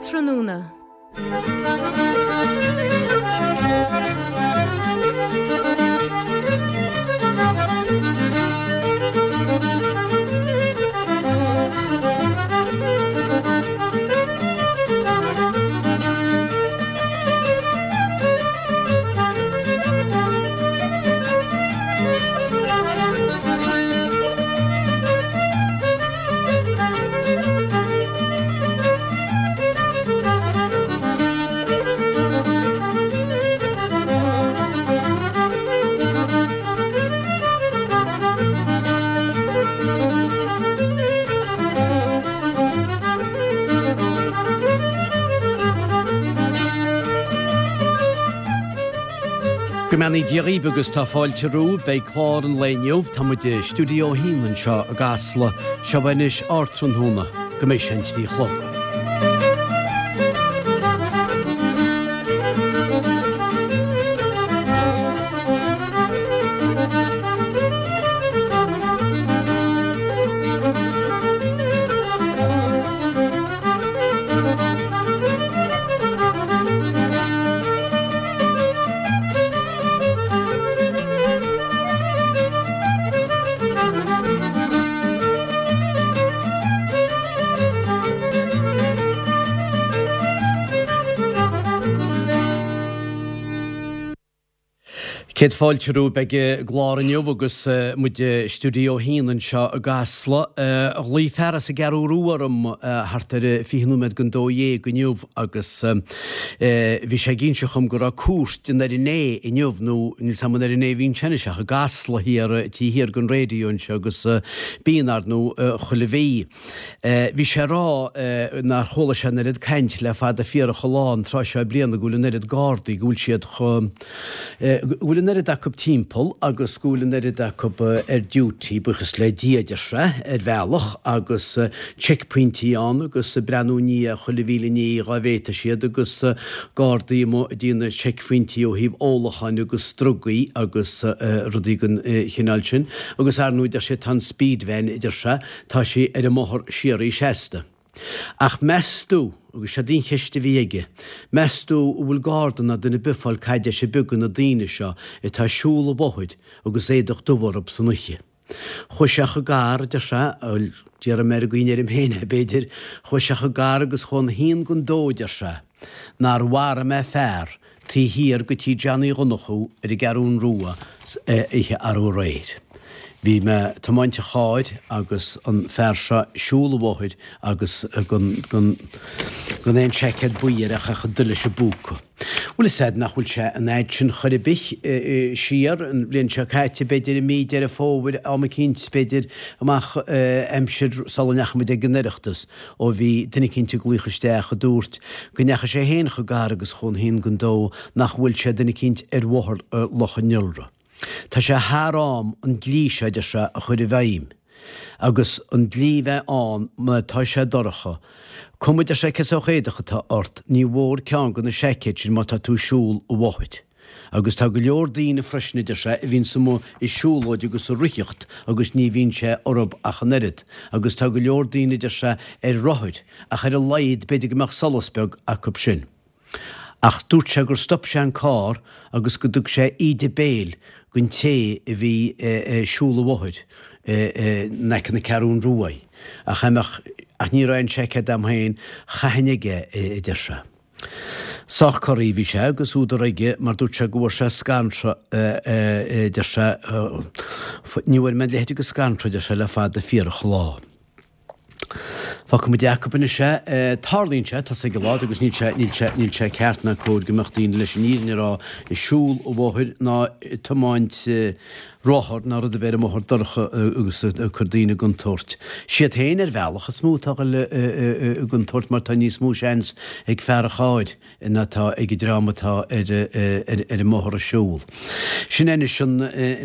Ardtráthnóna. Go mbeannaí Dia dhaoibh agus tá fáilte romhaibh. Beidh clár an lae inniu, tá muid i Stiúideo 1 anseo i gCasla. Seo anois Ardtráthnóna, go mbeidh sé an 3 a chlog. Céad fáilte romhaibh. Beidh an clár inniu agus muid i Stiúideo 1 anseo i gCasla. Ghlaoigh fear as an gCeathrú Rua orm thart ar 20 nóiméad don 12 inniu agus bhí sé ag inse dhom go raibh cuairt den RNA inniu, nó níl 's a'm an RNA a bhíonn sé anois ach i gCasla thiar, taobh thiar den raidió anseo agus bíonn, ar ndóigh, chuile mhí. Bhí sé ag rá nár chuala sé an oiread caint le fada fíorach an lá an tráth seo bliana go bhfuil an oiread Gardaí, go bhfuil siad chomh. go bhfuil an oiread acu timpeall agus go bhfuil an oiread acu ar duty, buíochas le Dia, a deir sé, ar bhealach, agus checkpointí ann agus ag breathnú i ndiaidh chuile mhíle ní dhá bhféadfadh siad agus gardaí amuigh ag déanamh seicphointí ó thaobh ólacháin agus drugaí agus rudaí den chineál sin. Agus ar ndóigh, deir sé, tá an speed van, a deir sé, tá sí ar an mbóthar síoraí seasta. Ach meas tú, agus seod í an cheist a bhí aige, meas tú an bhfuil garda ná duine ar bith ag fáil caidéis ar bith de na daoine seo atá ag siúl an bhóthair agus éadach dubh orthu san oíche? Chuaigh sé chomh gar, a deir sé, bhuel, déarfaidh mé ar an gcaoi a ndeirim féin é, b'fhéidir, chuaigh sé chomh gar agus chuaigh an haon don dó, a deir sé, nár mharaigh mé fear taobh thiar de tí Johnny Dhonnchú ar an gCeathrún Rua oíche arú aréir. Bhí mé ag tiomáint an chairr agus an fear seo ag siúl an bhóthair agus gan gan gan aon seaicéad buí air ach ach an leis an bpúca. Bhfuil fhios a'd nach bhfuil sé an fhad sin chor ar bith siar, an bhliain seo caite b'fhéidir i mí Deireadh Fómhair am eicínt b'fhéidir amach aimsir sula ndeachaigh muid ag an Oireachtas. ó bhí duine eicínt ag glaoch isteach a dúirt go ndeachaigh sé féin chomh gar agus chomh haon don dó nach bhfuil sé duine eicínt ar bhóthar Loch an Iora. Tá sé thar am an dlí seo, a deir sé, a chur i bhfeidhm. Agus an dlí bheith ann má tá sé dorcha. Cuma, a deir sé, cén sórt éadach atá ort, ní mhór ceann de na seaicéid sin má tá tú ag siúl an bhóthair. Agus tá go leor daoine freisin, a deir sé, a bhíonns amuigh ag siúlóid agus ag ritheacht agus ní bhíonn sé orthub ach an oiread. Agus tá go leor daoine, a deir sé, ar rothair, ach ar a laghad b'fhéidir go mbeadh solas beag acub sin. Ach dúirt sé gur stop sé an carr agus go dtug sé íde béil don té a bhí ag siúl an bhóthair in aice na Ceathrún Ruaidh. Ach ach ní raibh aon seaicéad a'm féin, chaithfinn aige é, a deir sé. Sách corraithe a bhí sé agus údar aige mar dúirt sé go bhfuair sé scanradh, a deir sé, ní bhfuair mé a leithéid de scanradh, a deir sé, le fada fíorach an lá. Fágfaidh muid acu anois é. Tarlaíonn sé, tá 's ag a lán agus níl sé, níl sé, níl sé ceart ná cóir go mbeadh daoine leis an fhírinne a rá ag siúl an bhóthair ná ag tiomáint rothar ná rud ar bith ar an mbóthar dorcha agus ag cur daoine i gcontúirt. Siad féin ar bhealach is mó atá ag dul i gcontúirt mar tá níos mó seans ag fear an chairr ná atá ag an dream atá ar ar an mbóthar ag siúl. Sin é anois an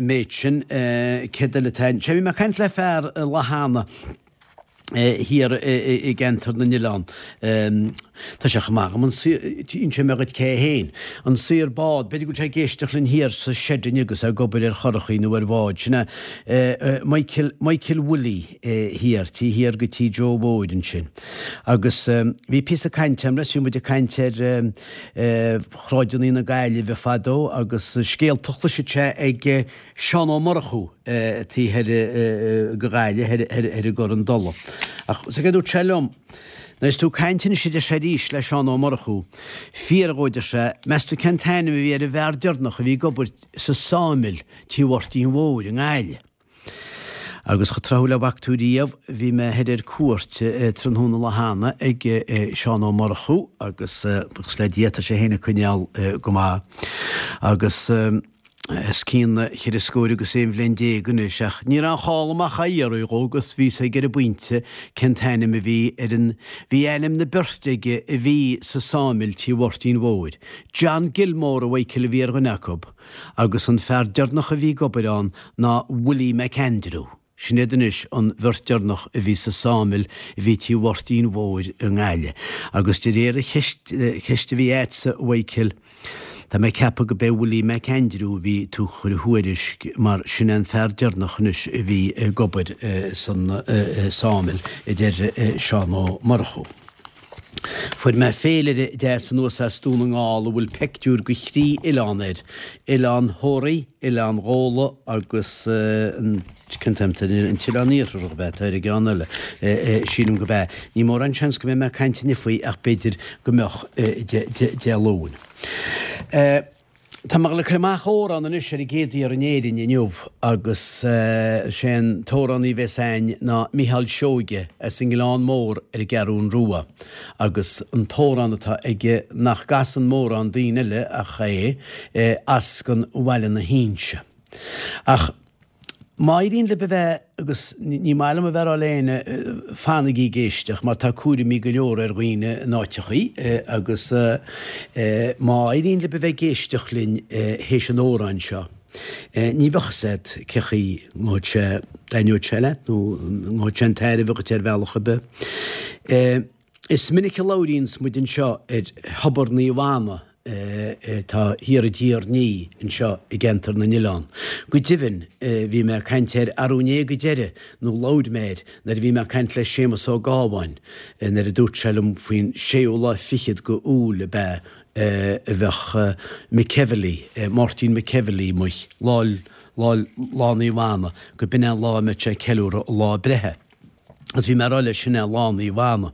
méid sin. Céard eile atá ann? Sea, bhí mé ag caint le fear lá cheana thiar i gceantar na nOileán. Tá sé chomh maith agam an saor, inseoidh mé dhuit cé é féin. An saor bád, b'fhéidir go bhfuil sé ag éisteacht linn thiar sa seid inniu agus é ag obair ar churachaí nó ar bhád. Sin é Michael, Michael Willie thiar, taobh thiar go tí Joe Mhóir ansin. Agus bhí píosa cainte agam leis, bhí muid ag caint ar shráideanna na Gaillimhe fadó agus scéalta a chloiseadh sé ag Seán Ó Murchú taobh thoir de Ghaillimh, thoir i gCorr an Dola. Ach is é a dúirt sé liom, Nuair is tú ag caint anois a deir sé arís le Seán Ó Murchú, fiafraigh dhó a deir sé, meas tú cén t-ainm a bhí ar an bhfear deireanach a bhí ag obair sa sawmill Tí Mháirtín Mhóir i nGaillimh. Agus chomh tráthúil le bhfaca tú riamh, bhí mé thoir ar cuairt tráthnóna lá cheana ag Seán Ó Murchú agus buíochas le Dia tá sé féin ag coinneáil go maith agus os cionn cheithre scór agus aon bhliain déag anois, ach ní raibh aon chall amach á iarraidh dhó agus bhí 'fhios aige ar an bpointe cén t-ainm a bhí ar an, bhí ainm na beirte aige a bhí sa sawmill Tí Mháirtín Mhóir. John Gilmore, a Mhichael, a bhí ar dhuine acu agus an fear deireanach a bhí ag obair ann ná Willie McAndrew. Sin iad anois an bheirt deireanach a bhí sa sawmill a bhí Tí Mháirtín Mhóir i nGaillimh. Agus de réir an cheist, ceist a bhí a'dsa, a Mhichael, tá mé ag ceapadh go b'é Willie McAndrew a bhí tú chur a thuairisc mar sin é an fear deireanach anois a bhí ag obair san sawmill, a deir Seán Ó Murchú. Fuair mé féilire deas anuas as Dún na nGall a bhfuil peictiúr de thrí oileán air, Oileán Thoraí, Oileán Ghabhla agus an cén t-ainm atá air, an tOileán Iartharach ab ea atá ar an gceann eile, sílim gurb ea. Ní mórán seans go mbeidh mé ag caint inniu faoi ach b'fhéidir go mbeadh Dé Luain. Tá mé ag dul ag cur amach amhrán anois ar an gcéad iarraidh in Éirinn inniu agus sé an t-amhránaí a bhéas a'ainn ná Micheál Seoige as an nGleann Mór ar an gCeathrún Rua agus an t-amhrán atá aige nach gcasann mórán daoine eile ach é, As gon Bhaile na hInse. Ach. Má éiríonn libh a bheith, agus ní maith liom a bheith ag rá le éinne, fanaigí ag éisteacht mar tá cúraimí go leor ar dhaoine in áiteachaí agus má éiríonn libh a bheith ag éisteacht linn théis an amhráin seo, ní bheadh fhios agat cé chaoi ngabhfaidh sé, dtaitneoidh sé leat nó ngabhfaidh sé chun tairbhe dhuit ar bhealach ar bith. Is minic a labhraíonns muid anseo ar Thobar Naomh Anna atá thiar i dTír an Fhia anseo i gCeantar na nOileán. Go deimhin, bhí mé ag caint air arú inné go deireadh, nó labhair mé air, nuair a bhí mé ag caint le Séamus Ó Gábháin, nuair a dúirt sé liom faoin séú lá fichead go Iúil ab ea a bheadh McEvilly, Máirtín McEvilly amuigh, lá, lá, Lá Naomh Anna, go b'in é an lá a mbeadh sé ag ceiliúradh a lá breithe. Agus bhí mé ag rá leis sin é Lá Naomh Anna.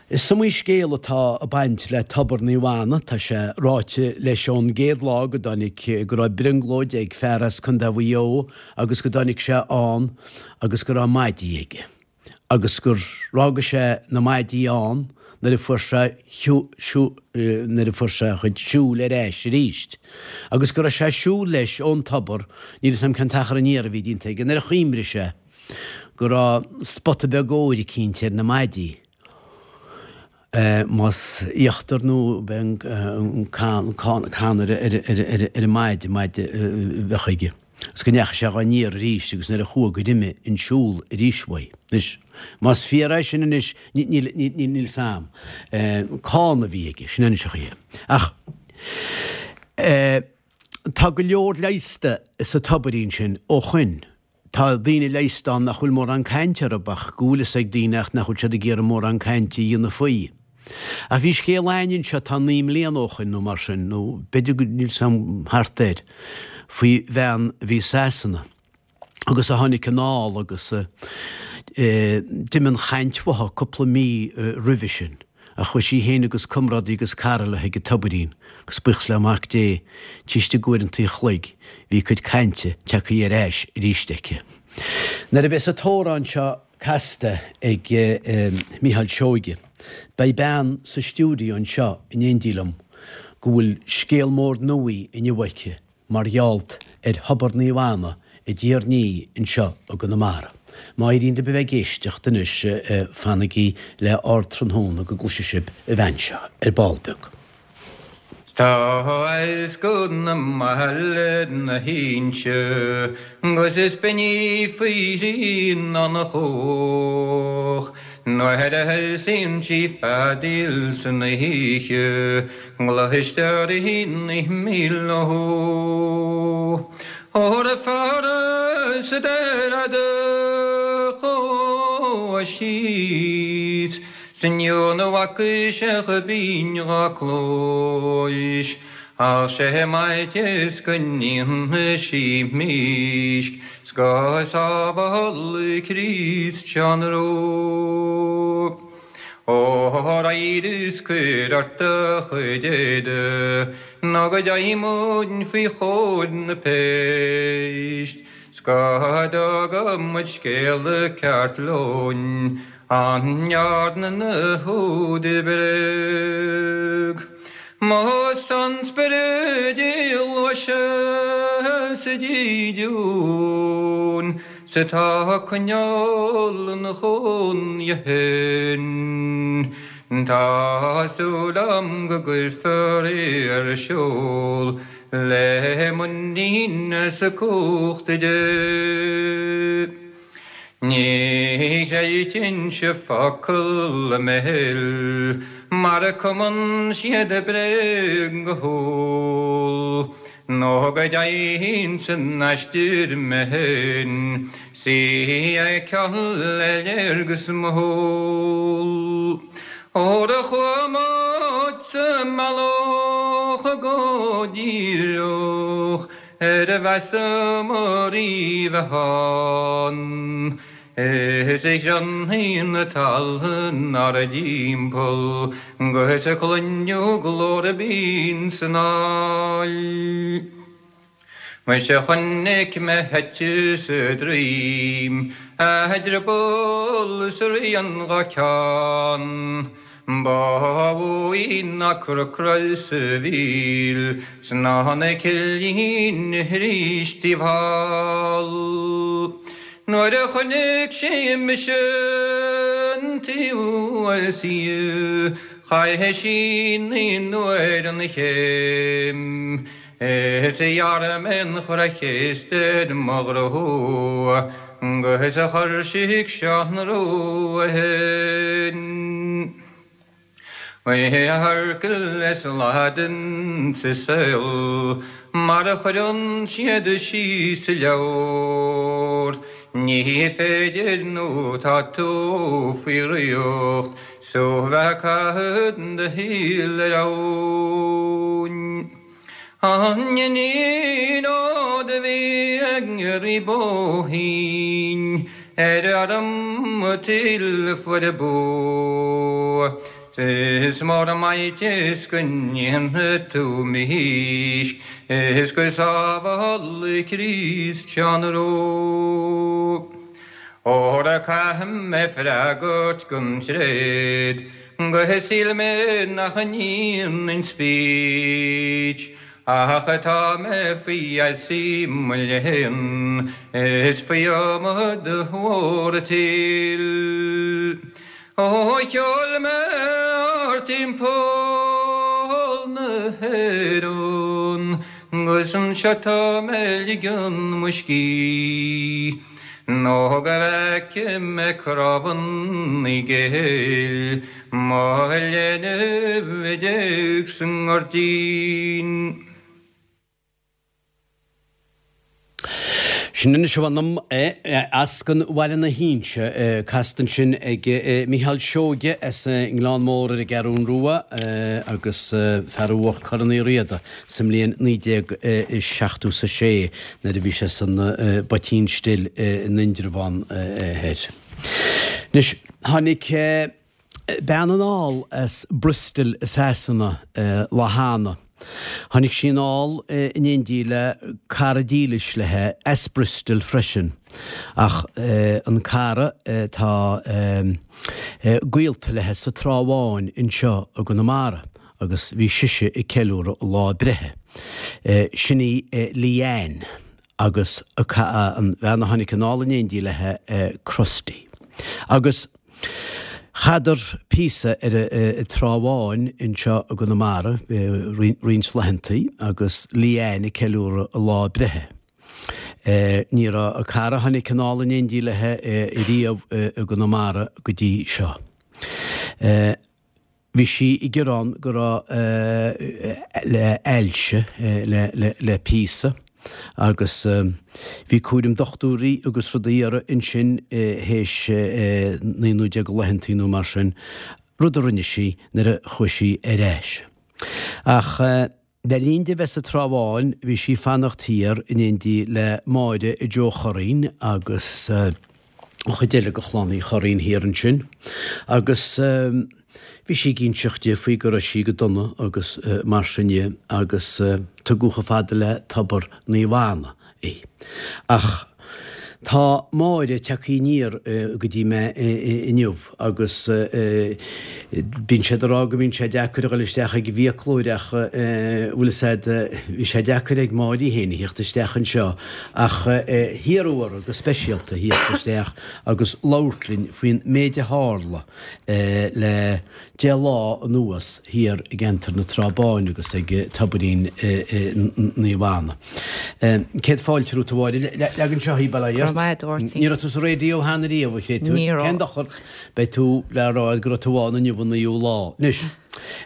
Is iomaí scéal atá ag baint le Tobar Naomh Anna, tá sé ráite leis ón gcéad lá go dtáinig, go raibh brionglóid ag fear as Contae Mhaigh Eo agus go dtáinig sé ann agus go raibh maidí aige agus gur fhága sé na maidí ann nuair a fuair sé nuair a fuair sé a chuid siúil ar ais arís agus go raibh sé ag siúl leis ón tobar, níl 'fhios a'm cén t-achar aniar a bhí déanta aige, nuair a chuimrigh sé. go raibh spota beag óir eicínt ar na maidí, más íochtar nó b'é an cann ar an maide, maide a bheadh aige, agus go ndeachaigh sé dhá n-iarraidh arís agus nuair a chuaigh gur imigh an siúl arís uaidh. Anois, más fíor é sin anois, níl 'fhios a'm. Cána a bhí aige, sin anois an chaoi é. Ach tá go leor leigheasta sa tobairín sin ó shoin. Tá daoine leigheasta ann nach bhfuil mórán cainte orthu ach go bhfuil fhios ag daoine ach nach bhfuil siad ag iarraidh mórán cainte a dhéanamh faoi. Ach bhí scéal a'ainn anseo tá 9 mbliana ó shoin nó mar sin, nó b'fhéidir go, níl 'fhios a'm, thart air, faoi bhean a bhí i Sasana agus a tháinig anall agus d'imigh an chaint uaithi cúpla mí roimhe sin. Ach chuaigh sí féin agus comrádaí agus cara léi chuig an tobairín, agus buíochas le Mac Dé, taobh istigh d'uaireanta an chloig, bhí a cuid cainte tagtha ar ais arís aici. Nuair a bheas an t-amhrán seo casta ag Mícheál Seoige, beidh bean sa stiúideo anseo in éindí liom go bhfuil scéal mór nuaí inniu aici mar gheall ar Thobar Naomh Anna i dTír an Fhia anseo i gConamara. Má éiríonn libh a bheith ag éisteacht anois, fanaigí le Ardtráthnóna go gcloisfidh sibh an bhean seo ar ball beag. Tá as go na mBaile na hInse 'gus is binn í faoi thrí ná na chóch. Nuair a thosaíonn sí feadaíl san oíche, Cloistear í 9 míle ó. Óra feara sa deireadh do chuaigh síos, 'S inniu na bhfaca sé chomh binn dhá cluais, Ach sé m'fhaitíos go ndéanfaidh sí mísc 's go sábhála Críost Seán Rua. Óra éirigh 's cuir ort do chuid éadaigh nó go dteigh muid faoi chomhair na péist 's go dtuga muid scéala ceart leoin An ndearna na húdair bréag? Más an spiorad í ghluaiseadh sa dídean 's atá ag coinneáil ina chónaí féin, tá súil a'm go gcuirfear í ar siúl le muinín as cumhacht Dé. Ní chreidfinnse focal a mbéil mar a cumann siad bréag go humhal, nó go dteigheann san aistear mé féin 's í a fheiceáil le léargas mo shúl. Óra chuaigh muid sa mbealach go díreach Ar mheasamar í bheith ann. Is a chronnaigh na talmhan ár dtimpeall 'gus a cluineadh glór binn san aill. Muise chonaic mé eite sa droim, a drioball is a rian dhá ceann. Ba mhó í ná corcra is a mhíl 's ná na cillíní thríis taobh thall. Nuair a chonaic sí mise an taobh as í chaith sí naoi n-uair an chéim is ghearr mé an chroich chéasta ar mo ghrua 'gus chuir sí chuig Seán Rua sinn. Oíche thoirchil is Laidin sa saol mar a chuireann siad síos sa leabhar. Ní féidir nó tá tú faoi dhraíocht 's tú bheith ag caitheamh do shaoil ar abhainn. An iníon ó do bhí ag rí Bóithín ar arm tuil fuair bua. Is mór an m'fhaitíos go ndéanfaidh tú mísc is go sábhála Críost Seán Rua. Óra caithfidh mé freagairt don tréad Gur shíl mé nach ndéanfainn speech Ach tá mé faoi gheasa mo léan Is faoi iomad mhór an tsaoil Ó sheol mé thart timpeall na hÉireann 'Gus anseo tá mé ag ligean mo scíth. Nó go bhfeice mé crábhanna Gael mo leanbh a d'éag sa ngairdín. Sin anois a mh'anam é, as Eascann Bhaile na hInse, casta ansin ag Mícheál Seoige as an nGleann Mór ar an gCeathrún Rua agus fear a bhuach Corn Uí Riada. sa mbliain 1976 nuair a bhí sé san bPoitín Stil in Indreabhán Thoir. Anois, tháinig bean anall as Bristol i Sasana lá cheana. Tháinig sí anall in éindí le cara dílis léi as Bristol freisin, ach an cara tá gaolta léi sa Trá Bháin anseo i gConamara. agus bhí sise ag ceiliúradh a lá breithe. Sin í Leanne agus an bhean a tháinig anall in éindí léi, Crusty. Agus chaitheadar píosa ar an Trá Bháin anseo i gConamara roinnt laethantaí agus Leanne ag ceiliúradh a lá breithe. Ní raibh a cara a tháinig anall in éindí léi riamh i gConamara go dtí seo. Bhí sí ag gearán go raibh le ailse le píosa agus bhí cúram dochtúirí agus rudaí uirthi ansin théis 19 nó 20 laethantaí nó mar sin, rud a rinne sí nuair a chuaigh sí ar ais. Ach le linn di bheith sa Trá Bháin bhí sí ag fanacht thiar in éindí le Máire Joe Churraoin agus an chuid eile de chlann Uí Churraoin thiar ansin agus bhí sí ag inseacht di faoi go raibh sí go dona agus mar sin dhe agus tugadh chomh fada le Tobar Naomh Anna í. Ach tá Máire tagtha aniar go dtí mé inniu agus bíonn siad ag rá go mbíonn sé deacair a dhul isteach ag an bhfiaclóir ach bhfuil fhios a'd, bhí sé deacair ag Máire í féin a theacht isteach anseo ach hiarradh uirthi go speisialta theacht isteach agus labhairt linn faoin méid a tharla le 10 lá anuas thiar i gceantar na Trá Báine agus ag Tobairín Naomh Anna. Céad fáilte romhat a Mháire. Leag anseo í, bail ó Dhia ort. Go raibh maith agat, a Mháirtín. Ní raibh tú sa raidió cheana riamh, a chréatúir. Ní raibh. Cén dochar? Beidh tú le rá go raibh tú ann inniu an naoú lá. Anois,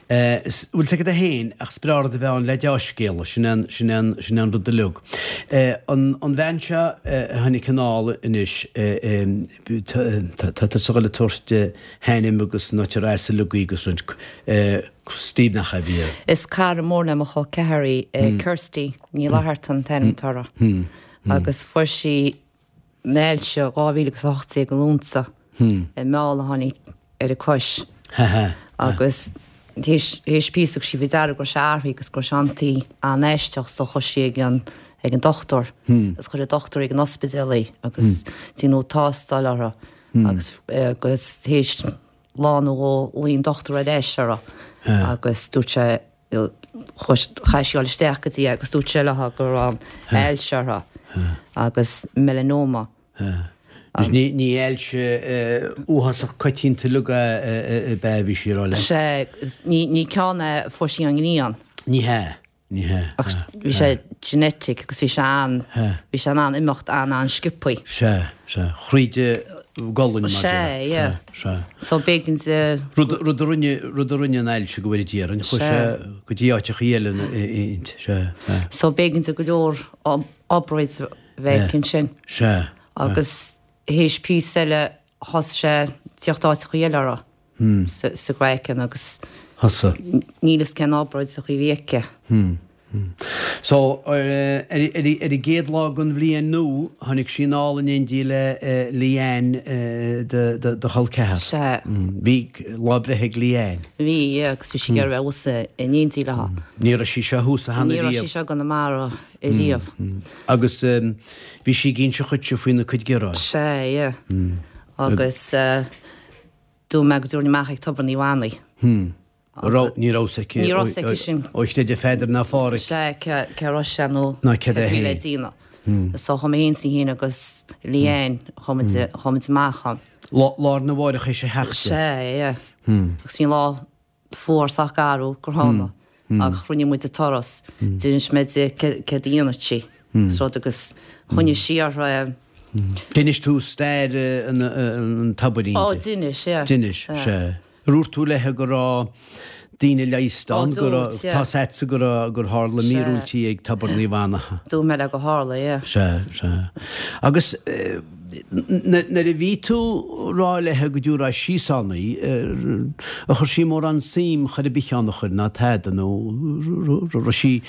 bhfuil 's agat féin ach is breá rud a bheith ann le deá-scéala, sin é an, sin é an, sin é an rud uilig. An, an bhean seo a tháinig anall anois, tá tusa ag dul a tabhairt a hainm agus an áit ar as uilig agus roinnt Steve nach ea a bhí air. Is cara mór le mo chol ceathar í, Kirsty Ní Fhlatharta an t-ainm atá uirthi agus fuair sí an ailse 2018 i Lúnasa i meall a tháinig ar a cois agus théis píosa thug sí faoi deara go raibh sé athraithe agus go raibh sé an-tí an-aisteach so chuaigh sí ag an ag an dochtúir agus chuir an dochtúir ag an ospidéal í agus déanadh tástáil uirthi agus agus théis lá nó dhó ghlaoigh an dochtúir ar ais uirthi agus dúirt sé chaith sí dul isteach go dtí é agus dúirt sé léi go raibh an ailse uirthi agus melanoma. Ní ní ailse uafásach coitianta uilig ab ea a bhí sí a rá leat. Sea, ní ní ceann é a fuair sí ón ngrian. Ní hea, ní hea. Ach bhí sé genetic agus bhí sé an, bhí sé in ann imeacht an-an-sciobthaí. Sea, sea. Thríd an gcolainn mar a déarfá. Sea, yeah. Sea, sea. So b'éigean di. Rud, rud a rinne, rud a rinne an ailse go bhfóire Dia orainn, chuaigh sé go dtí áiteachaí eile inti, sea, sea. So b'éigean di go leor obráid a bheith aici ansin. Sea. Agus théis píosa eile thosaigh sé tíocht áiteachaí eile uirthi sa gcraiceann agus Thosaigh. níl fhios cén obráid a bhí aici. So, ar ar an gcéad lá den bhliain nua, tháinig sí anall in éindí le Leanne do chol ceathar. Sea. Bhí lá breithe ag Leanne. Bhí, yeah, agus bhí sí ag iarraidh a bheith thuas in éindí léi. Ní raibh sí seo thuas cheana Ní raibh riamh. sí seo i gConamara ariamh. Agus bhí sí ag inse dhuitse faoina cuid gearáin. Sea, yeah. Agus dúirt mé go dtabharfainn amach ag Tobar Naomh Anna í. Raibh, ní raibh 's aici. Ní raibh 's aici sin. Ó chreideadh Pheadar ná Phádhraic. Sea, cé a raibh sé nó cad a bhí le déanamh. So chuaigh mé féin is í féin agus Leanne, chuaigh muid, chuaigh muid amach ann. Lá, lá arna mháireach théis a theacht di. Sea, yeah. Agus bhí an lá fuar sách garbh gránna ach rinne muid an turas. D'inis mé di céard a dhéanfadh sí is rud agus choinnigh sí uirthi. D'inis tú stair an tobairín di? Ó, d'inis, yeah. D'inis, sea. Ar dhúirt tú léi go raibh daoine leigheasta ann, go raibh, tá's a'dsa go raibh, gur tharla míorúiltí ag Tobar Naomh Anna? Dúirt mé léi gur tharla, yeah. Sea, sea. Agus Nuair a bhí tú rá léithe go dtiúrfá síos ann í, ar chuir sí mórán suim chor ar bith ann a chur ná tada nó raibh sí,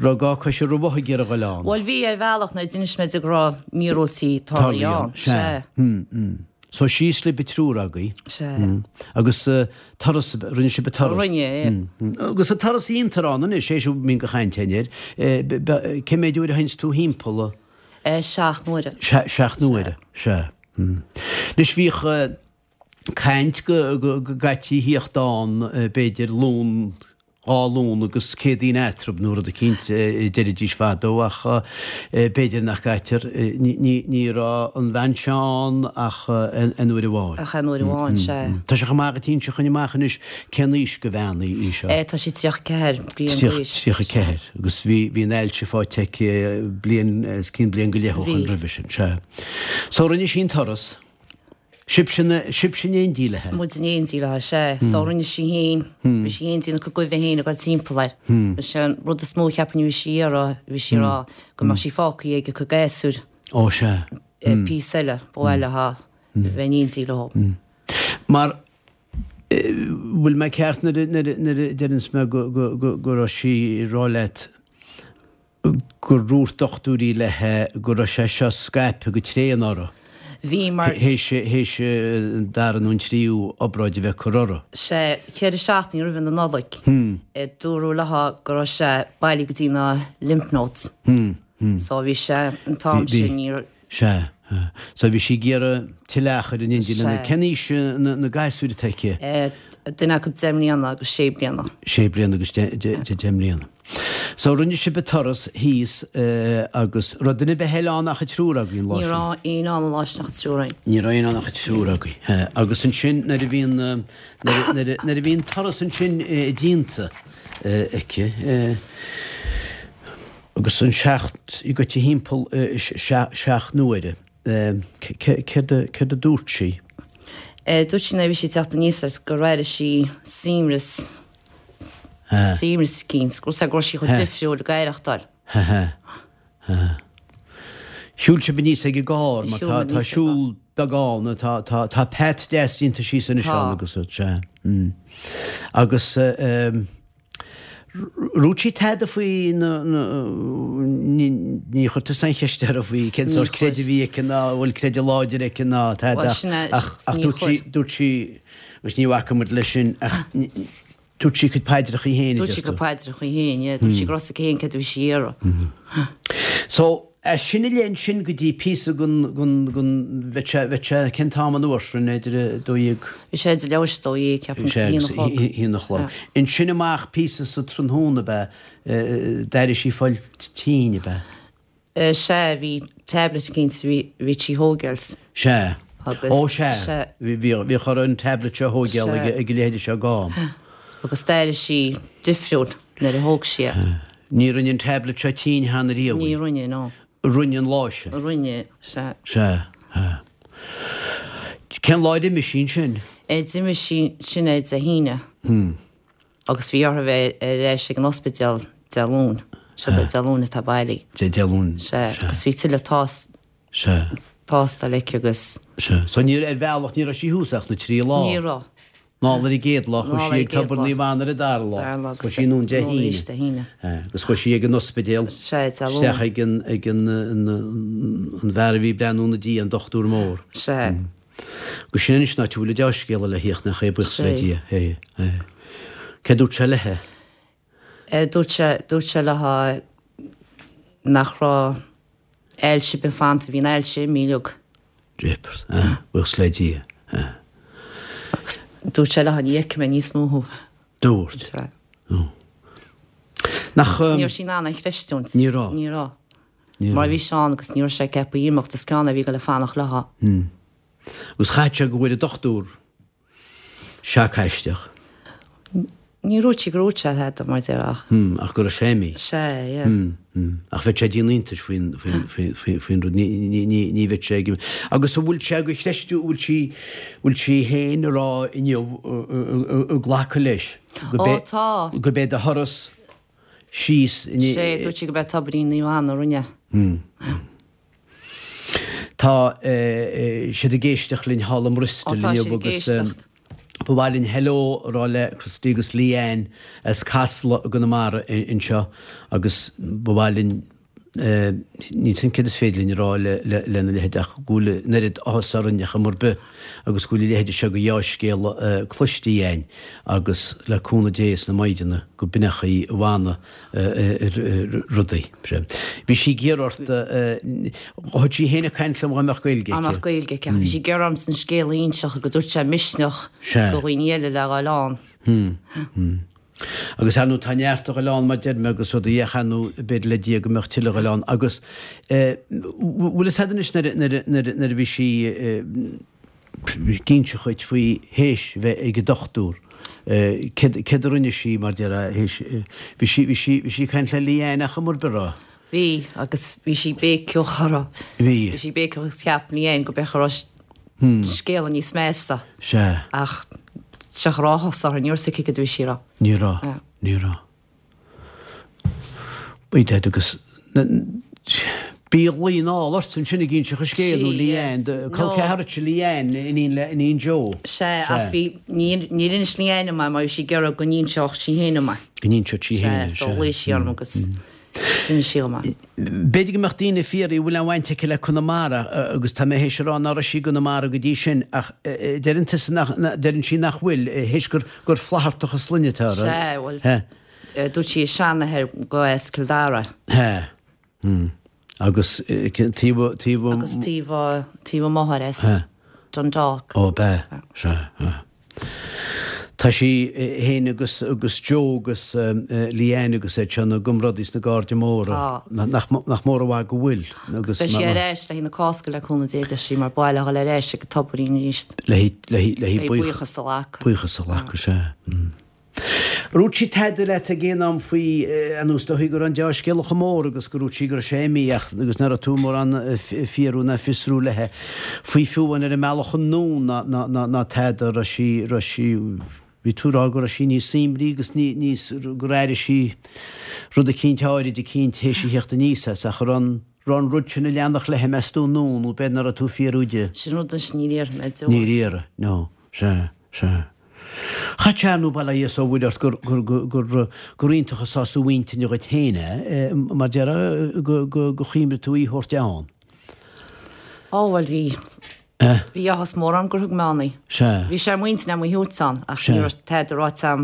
raibh gá coise romhath ag iarraidh dhul ann? Bhuel bhí ar bhealach nuair a d'inis mé di go raibh míorúiltí tarlaithe ann. Sea. So síos libh an triúr agaibh. Sea. Agus turas, rinne sibh an turas? Rinne, yeah. Agus an turas a dhéantar ann anois, é seo a mbíonn de chaint againn air, cé mhéid uair a théanns tú thimpeall? 7 n-uaire. 7 n-uaire, sea. Anois bhíodh caint go gcaití a thíocht ann b'fhéidir Luan, 2 Luan agus Céadaoin eatarthu nó rud eicínt a deiridís fadó ach b'fhéidir nach gcaitear, ní raibh an bhean seo ann ach aon uair amháin. Ach aon uair amháin, sea. Tá sé chomh maith agat inse chugainn amach anois cén aois go bhean í seo? Tá sí 34 bliain d'aois. 34. Agus bhí, bhí an ailse faighte aici bliain, os cionn bliain go leith ó Bhí. shoin roimhe sin, sea. So rinne sí an turas. Sibhse sibhse in éindí léithe? Muid in éindí léithe, sea. So rinne sí fhéin, bhí sí fhéin ag déanamh a cuid goimhe fhéin ag dul timpeall air. Is é an rud is mó a cheapfainn a bhí sí ag iarraidh, bhí sí ag rá go mbeadh sí fágtha ag a cuid gasúir. Ó, sea. Píosa eile, ba mhaith léithe bheith in éindí leo. Mar, bhfuil mé ceart nuair a deireanns mé go raibh sí ag rá leat gur dhúirt dochtúirí léithe go raibh sé seo scaipthe go tréan uirthi. Bhí, mar. Théis, théis an dara nó an tríú obráid a bheith curtha uirthi. Sé, cheithre seachtainí roimhe na Nollag, dúradh léithe go raibh sé bailithe go dtí na lymph nodes. So bhí sé, an t-am sin, ní raibh. Sea. So bhí sí ag iarraidh tuilleadh achair in éindí lena. Cén aois na gasúir atá aici? Duine acu 10 mbliana agus 6 bliana. 6 bliana agus 10 mbliana. So rinne sibh an turas thíos agus raibh duine ar bith eile ann ach an triúr agaibh an lá sin? Ní raibh éinne ann an lá sin ach an triúr againn. Ní raibh éinne ann ach an triúr agaibh. Agus ansin nuair a bhí an, nuair a bhí an turas ansin déanta aici, Agus an seacht, í goite thimpeall 7 n-uaire. Céard a dúirt sí? Dúirt sí nuair a bhí sí ag teacht aníos air gur airigh sí suaimhneas, suaimhneas eicínt, go raibh sí chomh difriúil ag aireachtáil. Shiúil sibh aníos ag an gcarr mar tá tá siúl beag ann, tá tá tá path deas déanta síos anois ann agus sea. Agus Dhúirt sí tada faoi na, ní chuir tusa aon cheist uirthi faoi cén sórt creideamh a bhí aici ná an bhfuil creideamh láidir aici ná tada ach ach dúirt sí, dúirt sí, agus ní bhacfaidh muid leis sin ach dúirt sí a cuid paidreachaí féin a deir tú. Dúirt sí a cuid paidreachaí féin, yeah, dúirt sí go raibh a fhios aici féin céard a bhí sí a iarraidh. So, As sin i leith ansin go dtí píosa den, den, den, bheadh sé, bheadh sé, cén t-am an uair sin, idir a 12. Bhí sé idir leathuair tar éis a 12, ceapaim, is a haon a chlog. A haon a chlog. Ansin amach píosa sa tráthnóna ab ea, d'éirigh sí ag fáil tinn ab ea? Sea, bhí tablet eicínt a bhí, bhí sí a thógáil. Sea. Agus, Ó sea, sea. bhí, bhíodh uirthi an tablet seo a thógáil ag, ag a leithéide seo d'am. Agus d'éirigh sí difriúil nuair a thóg sí é. Ní rinne an tablet seo tinn cheana riamh í. Ní rinne, no. Rinne an lá sin. Rinne, sea. Sea, sea. Cén lá ar imigh sí ansin? D'imigh sí ansin ar Dé hAoine. Agus bhí uirthi bheith ar ais ag an ospidéal Dé Luain. Sea, Dé Luain atá bailí. Dé Luain, sea. Sea, agus bhí tuilleadh tás, Sea. tástáil aici agus. Sea. So ní, ar bhealach ní raibh sí thuas ach na trí lá. Ní raibh. Anall ar an gcéad lá, chuaigh sí ag Tobar Naomh Anna ar an dara lá, chuaigh sí anonn Dé hAoine agus chuaigh sí ag an ospidéal isteach ag an ag an an bhfear a bhí ag breathnú ina diaidh, an dochtúir mór. Sea. Agus sin anois an áit a bhfuil an deá-scéala le thíocht nach é, buíochas le Dia. Céard dúirt sé léithe? Dúirt sé, dúirt sé léithe nach raibh ailse ar bith fanta, bhí an ailse imithe uilig. Jeepers, ah, buíochas le Dia, ah. Agus dúirt sé léithe ní fheicfidh mé níos mó thú. Dúirt? Sea. Oh. Nach. Ní raibh sí in ann é a chreistiúint. Ní raibh. Ní raibh. Ní raibh. Mar bhí sé ann agus ní raibh sé ceaptha imeacht, is ceann é a bhí ag dul a fanacht léithe. Hmm. Agus chaithfeadh sé go bhfuair an dochtúir Seac aisteach. Ní dúirt sí gur dhúirt sé tada mar deir ach. Hmm, ach go raibh sé imithe. Sea, yeah. Hmm, hmm. Ach bheadh sé ag déanamh iontais faoin, faoin, faoin, faoin, faoin rud. Ní, ní, ní, ní bheadh sé ag. Agus an bhfuil sé go chreistiú, bhfuil sí, bhfuil sí féin ag rá inniu, ag glacadh leis go Ó, tá. go b'é do thuras síos. Sea, dúirt sí go b'é Tobairín Naomh Anna a rinne. Hmm. Tá siad ag éisteacht linn thall i mBristol inniu agus ba mhaith linn hello a rá le Christy agus Leanne as Casla i gConamara anseo agus ba mhaith linn níl 's agam céard is féidir linn a rá lena leithéid ach go bhfuil an oiread áthas orainn ar chuma ar bith agus go bhfuil a leithéide seo de dheá-scéala cloiste againn agus le cúnamh Dé is na Maighdeana go b'in é chaoi a bhfanadh rudaí. Bhí sí ag iarraidh ort, thug sí féin ag caint liom dhá mbeadh Gaeilge aici. Dá mbeadh Gaeilge aici. Bhí sí ag iarraidh ormsa an scéal a inseacht go dtabharfadh sé misneach do dhaoine eile le dhul ann. Agus ar ndóigh tá neart a dhul ann mar deir mé agus rudaí ach ar ndóigh b'fhéidir le Dia go mbeadh tuilleadh a dhul ann agus bhfuil fhios a'd anois nuair a bhí sí ag inseacht dhuit faoi théis bheith ag an dochtúr. Céard, céard a rinne sí mar déarfá théis, bhí sí, bhí sí, bhí sí ag caint le Leanne ach mar b'ra? Bhí, agus bhí sí béiceach uirthi. Bhí. Bhí sí béiceach agus cheap Leanne go b'fhéidir go raibh. Scéala níos measa. Sea. Ach cha raibh áthas uirthi, ní raibh a fhios aici cad a bhí sí a rá. Ní raibh. Ní raibh. Bhí Ted agus b'í a ghlaoigh anall ort ansin ag inseacht an scéil nó Leanne, do col ceathar duitse Leanne, iníon le iníon Joe. Sea, ach bhí, níor inis Leanne dom é mar bhí sí ag iarraidh go n-inseodh sí féin dom é. Go n-inseodh sí féin é, sea. Sea, so ghlaoigh sí orm agus d'inis sí dom é. B'fhéidir go mbeadh daoine ag fiafraí an bhfuil aon bhaint aici le Conamara agus tá mé théis a rá ná raibh sí i gConamara go dtí sin ach deireann tusa nach, deireann sí nach bhfuil, théis gur gur Flaitheartach an sloinne atá uirthi. Sea, bhuel, dúirt sí a seanathair go as Cill Dara. Hea. Hmm. Agus taobh, taobh. Agus taobh, taobh a máthar as Dundalk. Ó, b'ea. Sea, sea. Tá sí féin agus, agus Joe agus Leanne agus iad seo ina gcomrádaí sna Cairde Móra. Tá. Nach, nach mór an mhaith go bhfuil. Agus beidh sí ar ais le haghaidh na Cásca le cúnamh Dé, deir sí, mar ba mhaith léi dhul ar ais ag an tobairín arís. Le haghaidh, le haghaidh, le haghaidh buíochas a ghlacadh. Buíochas a ghlacadh, sea. Ar dhúirt sí tada leat ag aon am faoi, ar ndóigh is dóichí go raibh an deá-scéala chomh mór agus gur dhúirt sí go raibh sé imithe ach agus nach raibh tú mórán fiafraí ná fiosrú léithe faoi fiú amháin ar an mbealach anonn ná ná ná ná tada raibh sí raibh sí bhí tú ag rá go raibh sí níos suaimhní agus ní níos gur airigh sí rud eicínt áirid eicínt théis a theacht aníos as ach an raibh an raibh an rud sin ag leanacht léithe meas tú anonn nó b'fhéidir nach raibh tú ag fiafraí di. Sin rud anois níor iarr mé di. Níor iarr, no, sea, sea. Cha tear nó bail ó Dhia 's ó Mhuire ort gur, gur, gur, gur iontach an sásamh intinne dhuit féin é, mar déarfá, go, go, go chuimhnigh tú í a thabhairt ann. Á, bhuel, bhí, bhí áthas mór orm gur thug mé ann í. Sea. Bhí sé ar m'intinn agam í a thabhairt ann, ach ní raibh tada ráite agam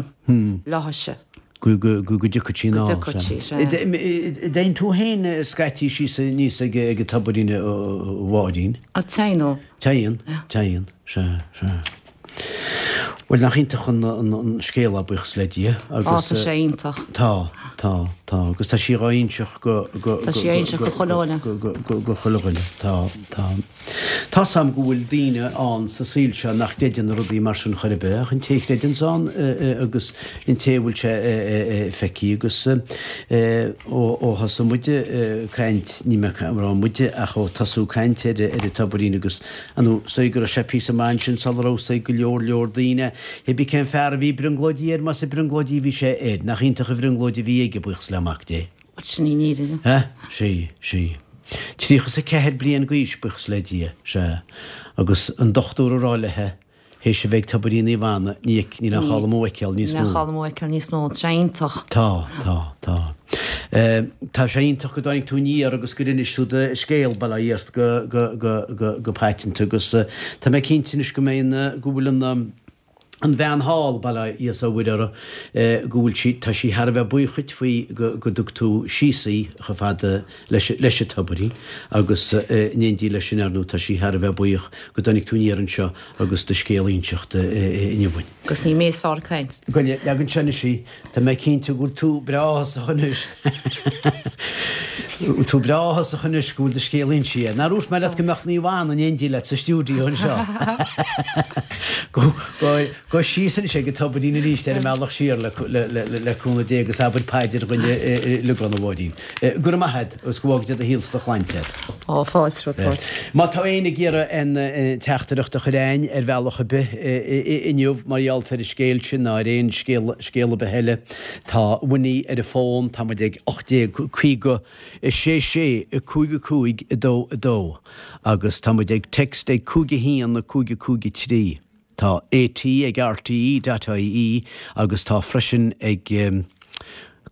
léithise. Go, go, go, go dtiocfadh sí anall. Go dtiocfadh sí, sea. Dtéann tú féin scaití síos aníos ag, ag an tobairín, a Mháirín? Á, téann, ó. Téann, téann, sea, sea. Bhuel, nach iontach an scéal é, buíochas le Dia, agus. Á, tá sé iontach. Tá, tá, tá, agus tá sí dhá inseacht go, go, Tá sí á inseacht go chuile dhuine. go, go, go, go chuile dhuine, tá, tá. Tá's a'm go bhfuil daoine ann sa saol seo nach gcreideann i rudaí mar sin chor ar bith, ach an té a chreideanns ann agus an té a bhfuil sé feicthe agus ó, ó thosaigh muide caint, ní mé ag rá muide ach ó tosú caint ar, ar an tobairín agus Ar ndóigh, is dóigh go raibh sé píosa maith ansin sula raibh fhios ag go leor leor daoine. Hé bí cén fear a bhí ag brionglóidí air, más ag brionglóidí a bhí sé air. Nach iontach an bhrionglóid a bhí aige, buíochas le Mac Dé. Sin í an fhírinne. Hea, sea, sea. 34 bliain d'aois, buíochas le Dia, sea. Agus an dochtúir a rá léithe, Théis a bheith ag Tobairín Naomh Anna, ní, níl aon chall amú a fheiceáil níos mó. Níl aon chall amú a fheiceáil níos mó. Tá sé iontach. Tá, tá, tá. Tá sé iontach go dtáinig tú aniar agus gur inis tú do scéal, bail ó Dhia ort, go, go, go, go, go paiteanta agus tá mé cinnte anois go mbeidh an, go bhfuil an, an bhean thall, bail ó Dhia 's ó Mhuire uirthi, go bhfuil sí, tá sí thar a bheith buíoch dhuit faoi go, go dtug tú síos í chomh fada leis, leis an tobairín agus in éindí leis sin, ar ndóigh, tá sí thar a bheith buíoch go dtáinig tú aniar anseo agus do scéal a inseacht inniu dhúinn. Agus ní mé is fearr ag caint. Gabh i leith, leag anseo anois í. Tá mé cinnte go bhfuil tú breá áthasach anois. Bhfuil tú breá áthasach anois go bhfuil do scéal insithe. Nár dhúirt mé leat go mbeadh Naomh Anna in éindí leat sa stiúideo anseo? Gabh síos anois ag an tobairín arís ar an mbealach siar le cúnamh Dé agus abair paidir dhuinn uilig ann, a Mháirín. Go raibh maith agat agus go bhfága Dia do shaol 's do shláinte agat. Ó, fáilte romhat. Má tá éinne ag iarraidh aon teachtaireacht a chur a'ainn ar bhealach ar bith inniu mar gheall ar an scéal sin ná ar aon scéal ar bith eile, tá Winnie ar an bhfón, tá muid ag 1850 6 6 5 5 2 2 agus tá muid ag text ag 5 1 5 5 3. Tá AT ag RTE dot ie agus tá freisin ag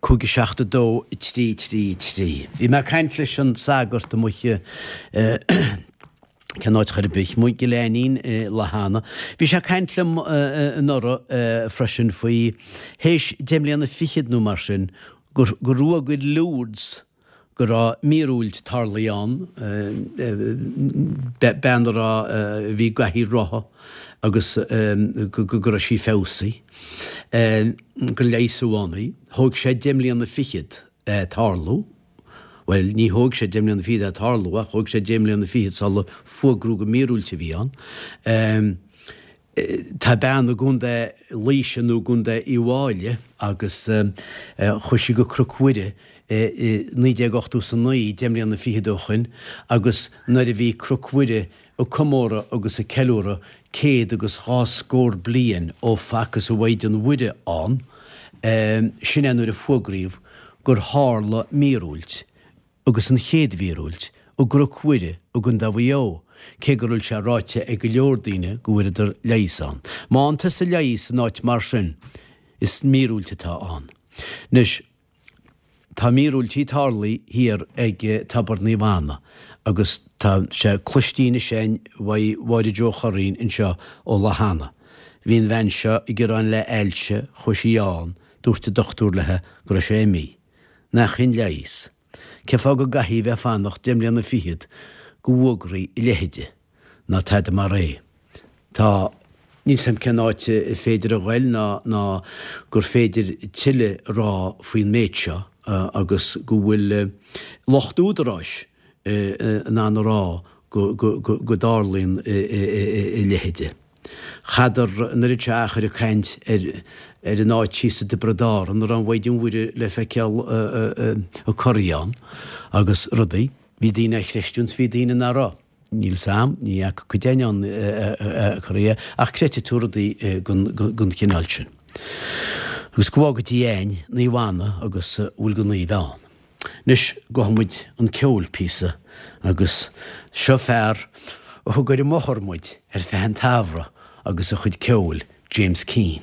5 7 2 3 3 3. Bhí mé ag caint leis an sagart amuigh i cén áit chor ar bith, amuigh i gCill Ainnín i Lathanna. Bhí sé ag caint liom anuraidh freisin faoi théis deich mbliana fichead nó mar sin gur rugadh i Lourdes go raibh míorúilt tarlaithe ann, bean a raibh, a bhí i gcathaoir rotha agus go raibh sí feabhsaithe, gur leigheasadh ann í. Thóg sé deich mbliana fichead é tarlú. Bhuel, ní thóg sé deich mbliana fichead é tarlú ach thóg sé deich mbliana fichead sula fuagradh gur míorúilt a bhí ann. Tá bean i gContae Laoise nó i gContae Uíbh Fháilí agus chuaigh sí go Cnoc Mhuire i 1989, deich mbliana fichead ó shoin, agus nuair a bhí Cnoc Mhuire. ag comóradh agus ag ceiliúradh céad agus dhá scór bliain ó facthas an Mhaighdean Mhuire ann, sin é nuair a fuagraíodh gur tharla míorúilt, agus an chéad mhíorúilt, i gCnoc Mhuire i gContae Mhaigh Eo, cé go bhfuil sé ráite ag go leor daoine go bhfuaireadar leigheas ann. Má fhaigheann tusa leigheas in áit mar sin, is míorúilt atá ann. Anois, tá míorúiltí tarlaithe thiar ag Tobar Naomh Anna agus tá sé cloiste anois againn uaidh Mháire Joe Churraoin anseo ó Lough Anna. Bhí an bhean seo ag gearán le ailse, chuaigh sí ann, dúirt an dochtúir léi go raibh sé imithe. Nach shin leigheas? Cén fáth go gcaithfí bheith ag fanacht deich mbliana fichead go bhfuagraí a leithide ná tada mar é? Tá, níl 's a'm cén áit a féidir a ghoil ná ná gur féidir tuilleadh a rá faoin méid seo agus go bhfuil lucht údaráis in ann a rá go go dtarlaíonn a leithide. Chadar an oiread seo achair ag caint ar ar an áit thíos i dTiobraid Árann a raibh an Mhaighdean Mhuire le feiceáil ag corraí ann agus rudaí. Bhí daoine á chreistiúint 's bhí daoine nach raibh. Níl 's a'm, ní fhaca cuid againn ann ag corraí ach creidfidh tú rudaí den chineál sin. Agus go bhfága Dia a'inn Naomh Anna agus a bhfuil de naoimh ann. Anois gabhfaidh muid 'un ceoil píosa agus seo fear a thug ar an mbóthar muid ar feadh an tsamhraidh agus a chuid ceoil, James Keane.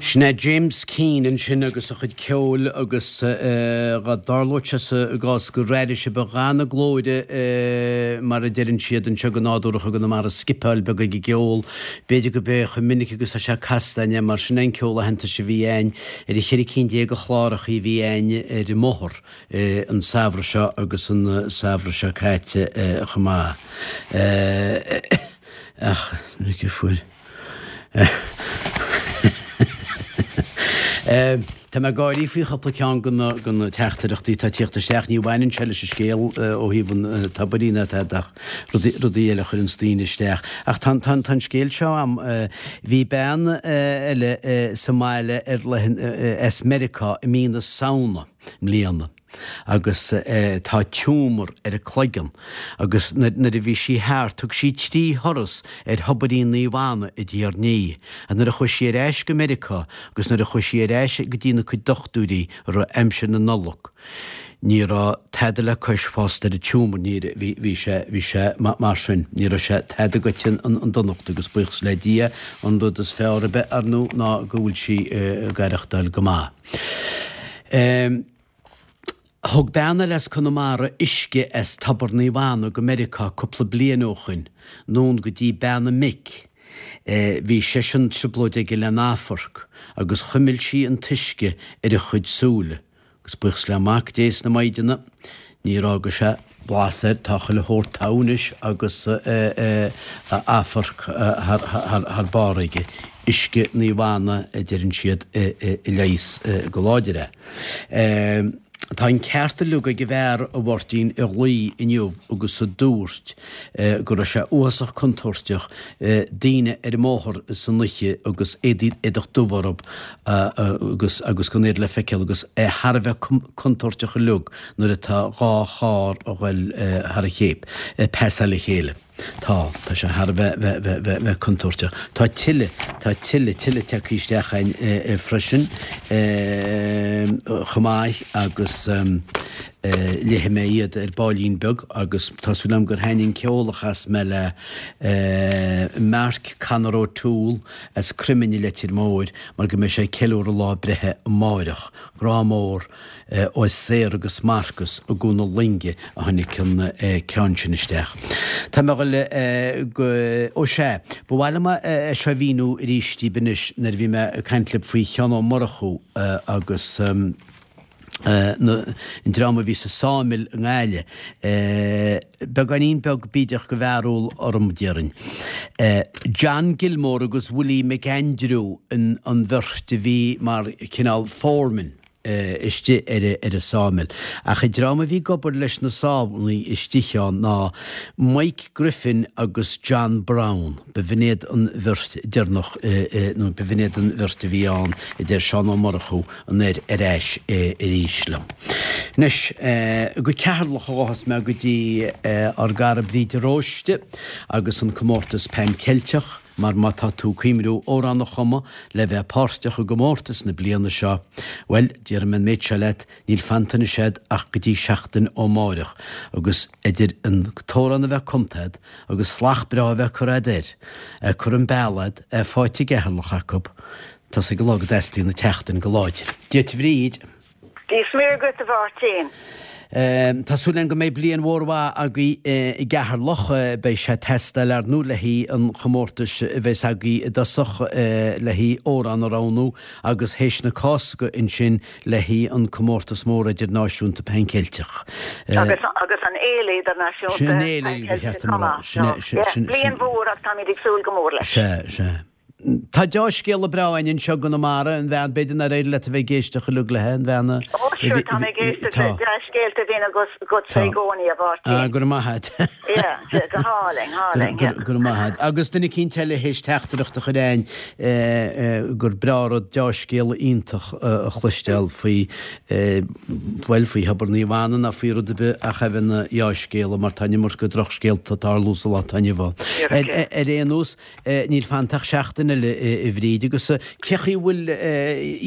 Sin é James Keane ansin agus a chuid ceoil agus dhá dtarlódh sé sa gcás gur airigh sibh a dhath na glóire mar a deireann siad anseo go nádúrach i gConamara scipeáil beag ag an gceol. B'fhéidir gurb é chomh minic agus tá sé casta againn é mar sin é an ceol aitheantais a bhí againn ar an cheithre cinn de chlárachaí a bhí againn ar an mbóthar an samhradh seo agus an samhradh seo caite chomh maith. Ach is minic a fuair. Tá mé ag gáirí faoi chúpla ceann de na teachtaireachtaí atá ag tíocht isteach. Ní bhaineann sé leis an scéal ó thaobh an tobairín ná tada ach rudaí eile a chuireanns daoine isteach. Ach tá an scéal seo a'm. Bhí bean eile sa mbaile ar as Meiriceá i mí na Samhna i mbliana. agus tá tiúmar ar a cloigeann agus nuair a bhí sí thart thug sí trí thuras ar Thobairín Naomh Anna i diaidh ar ndiaidh and nuair a chuaigh sí ar ais go Meiriceá agus nuair a chuaigh sí ar ais go dtí na cuid dochtúirí i rith aimsir na Nollag ní raibh tada le cois fosta ar an tiúmar ní bhí bhí sé bhí sé mar sin ní raibh sé tada goite an donacht agus buíochas le Dia an rud is fearr ar bith ar ndóigh ná go bhfuil sí ag aireachtáil go maith. Thug bean eile as Conamara uisce as Tobar Naomh Anna go Meiriceá cúpla bliain ó shoin, anonn go dtí bean a mic. Bhí seisean trioblóid aige lena amharc agus chuimil sí an t-uisce ar a chuid súile agus buíochas le Mac Dé is na Maighdeana níor fhága sé blas air, tá chuile shórt togha anois agus a amharc thar barr aige. Uisce Naomh Anna a deireann siad a leigheas go láidir é. Tá an ceart uilig ag an bhfear, a Mháirtín, a ghlaoigh inniu agus a dúirt go raibh sé uafásach contúirteach daoine ar an mbóthar san oíche agus éadach dubh orthu agus agus gan iad le feiceáil agus é thar a bheith contúirteach uilig nuair atá dhá charr a ghoil thar a chéip, ag pasáil a chéile. Tá, tá sé thar a bheith, bheith, bheith, bheith, bheith contúirteach. Tá tuilleadh, tá tuilleadh, tuilleadh tagtha isteach againn freisin chomh maith agus léifidh mé iad ar baillín beag agus tá súil agam gur thaitnigh an ceol a chas mé le Mark Conor O'Toole as Croiminn i Leitir Móir mar go mbeidh sé ag ceiliúradh lá breithe amáireach. Grá mór. Ó Sarah agus Marcus i gCuan na Loinge a tháinig an ceann sin isteach. Tá mé ag dul go, ó sea, ba mhaith liom é seo a mhíniú arís daoibh anois nuair a bhí mé ag caint libh faoi Sheán Ó Murchú agus an dream a bhí sa Sawmill i nGaillimh. Beagáinín beag bídeach de bharúil orm, déarfainn. John Gilmore agus Willie McAndrew an bheirt a bhí mar chineál foreman. istigh ar an sawmill. Ach an dream a bhí ag obair leis na sábhannaí istigh ann ná Mike Griffin agus John Brown. B'in iad an bheirt deireanach nó b'in iad an bheirt a bhí ann, a deir Seán Ó Murchú anoir ar ais arís liom. Anois, go Ceatharlach a ghabhfas mé go dtí ár gcara Bríd de Róiste agus an comórtas Pan Ceilteach. Mar má tá tú ag cuimhniú amhrán a chumadh le bheith páirteach i gcomórtas na bliana seo, bhuel, déarfaidh mé an méid seo leat, níl fanta anois a'd ach go dtí seachtain ó máireach, agus idir an t-amhrán a bheith cumtha a'd agus slat breá a bheith curtha a'd air, é curtha im béal a'd, é faighte i gCeatharlach acu, tá's ag an lá go dteastaíonn an tseachtain go láidir. Dia duit a Bhríd! Dia is Muire dhuit a Mháirtín. Tá súil againn go mbeidh bliain mhór mhaith agaibh i gCeatharlach. Beidh sé ag teastáil ar ndóigh le haghaidh an chomórtais a bheas agaibh i dtosach le haghaidh amhrán a roghnú agus théis na Cásca ansin le haghaidh an comórtas mór idirnáisiúnta Pan Ceilteach. Agus agus an fhéile idirnáisiúnta Sin an fhéile ba cheart dom a rá. Sin é, sin, sin. Bliain mhór agus táimid ag súil go mór leis. Sea, sea. Tá deá-scéala breá againn anseo i gConamara, an bhean, b'fhéidir nár éirigh leat a bheith ag éisteacht uilig léi, an bhean a. Ó, sure, tá mé ag éisteacht le dea-scéalta a bhíonn agatsa i gcónaí, a Mháirtín. Ah, go raibh maith a't. Yeah, go hálainn, hálainn, yeah. Go raibh maith a't. Agus duine eicínt eile théis teachtaireacht a chur a'ainn gur breá rud deá-scéala iontach a chloisteáil faoi, bhuel, faoi Thobar Naomh Anna ná faoi rud ar bith ach a bheith ina dheá-scéala mar tá an iomarca drochscéalta ag tarlú sa lá atá inniu ann. Ar aon nós, Níl fanta ach seachtain eile. eile, a Bhríd, agus cé chaoi a bhfuil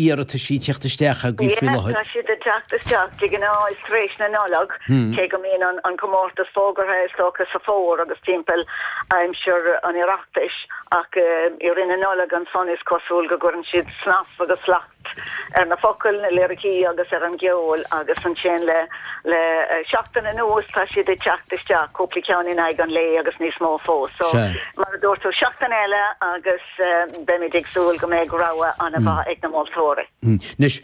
iarrataisí ag teacht isteach agaibh faoi láthair? Tá siad ag teacht isteach, de ghnáth is tar éis na Nollag, cé go mbíonn an comórtas fógartha is dócha sa bhfómhar agus timpeall aimsir an Oireachtais, ach i rith na Nollag ansan is cosúil go gcuireann siad snas agus slacht ar na focail, na liricí agus ar an gceol agus ansin le le seachtain anuas tá siad ag teacht isteach, cúpla ceann in aghaidh an lae agus níos mó fós. So, mar a dúirt tú, seachtain eile agus beimid ag súil go mbeidh rogha an-mhaith ag na moltóirí. Anois,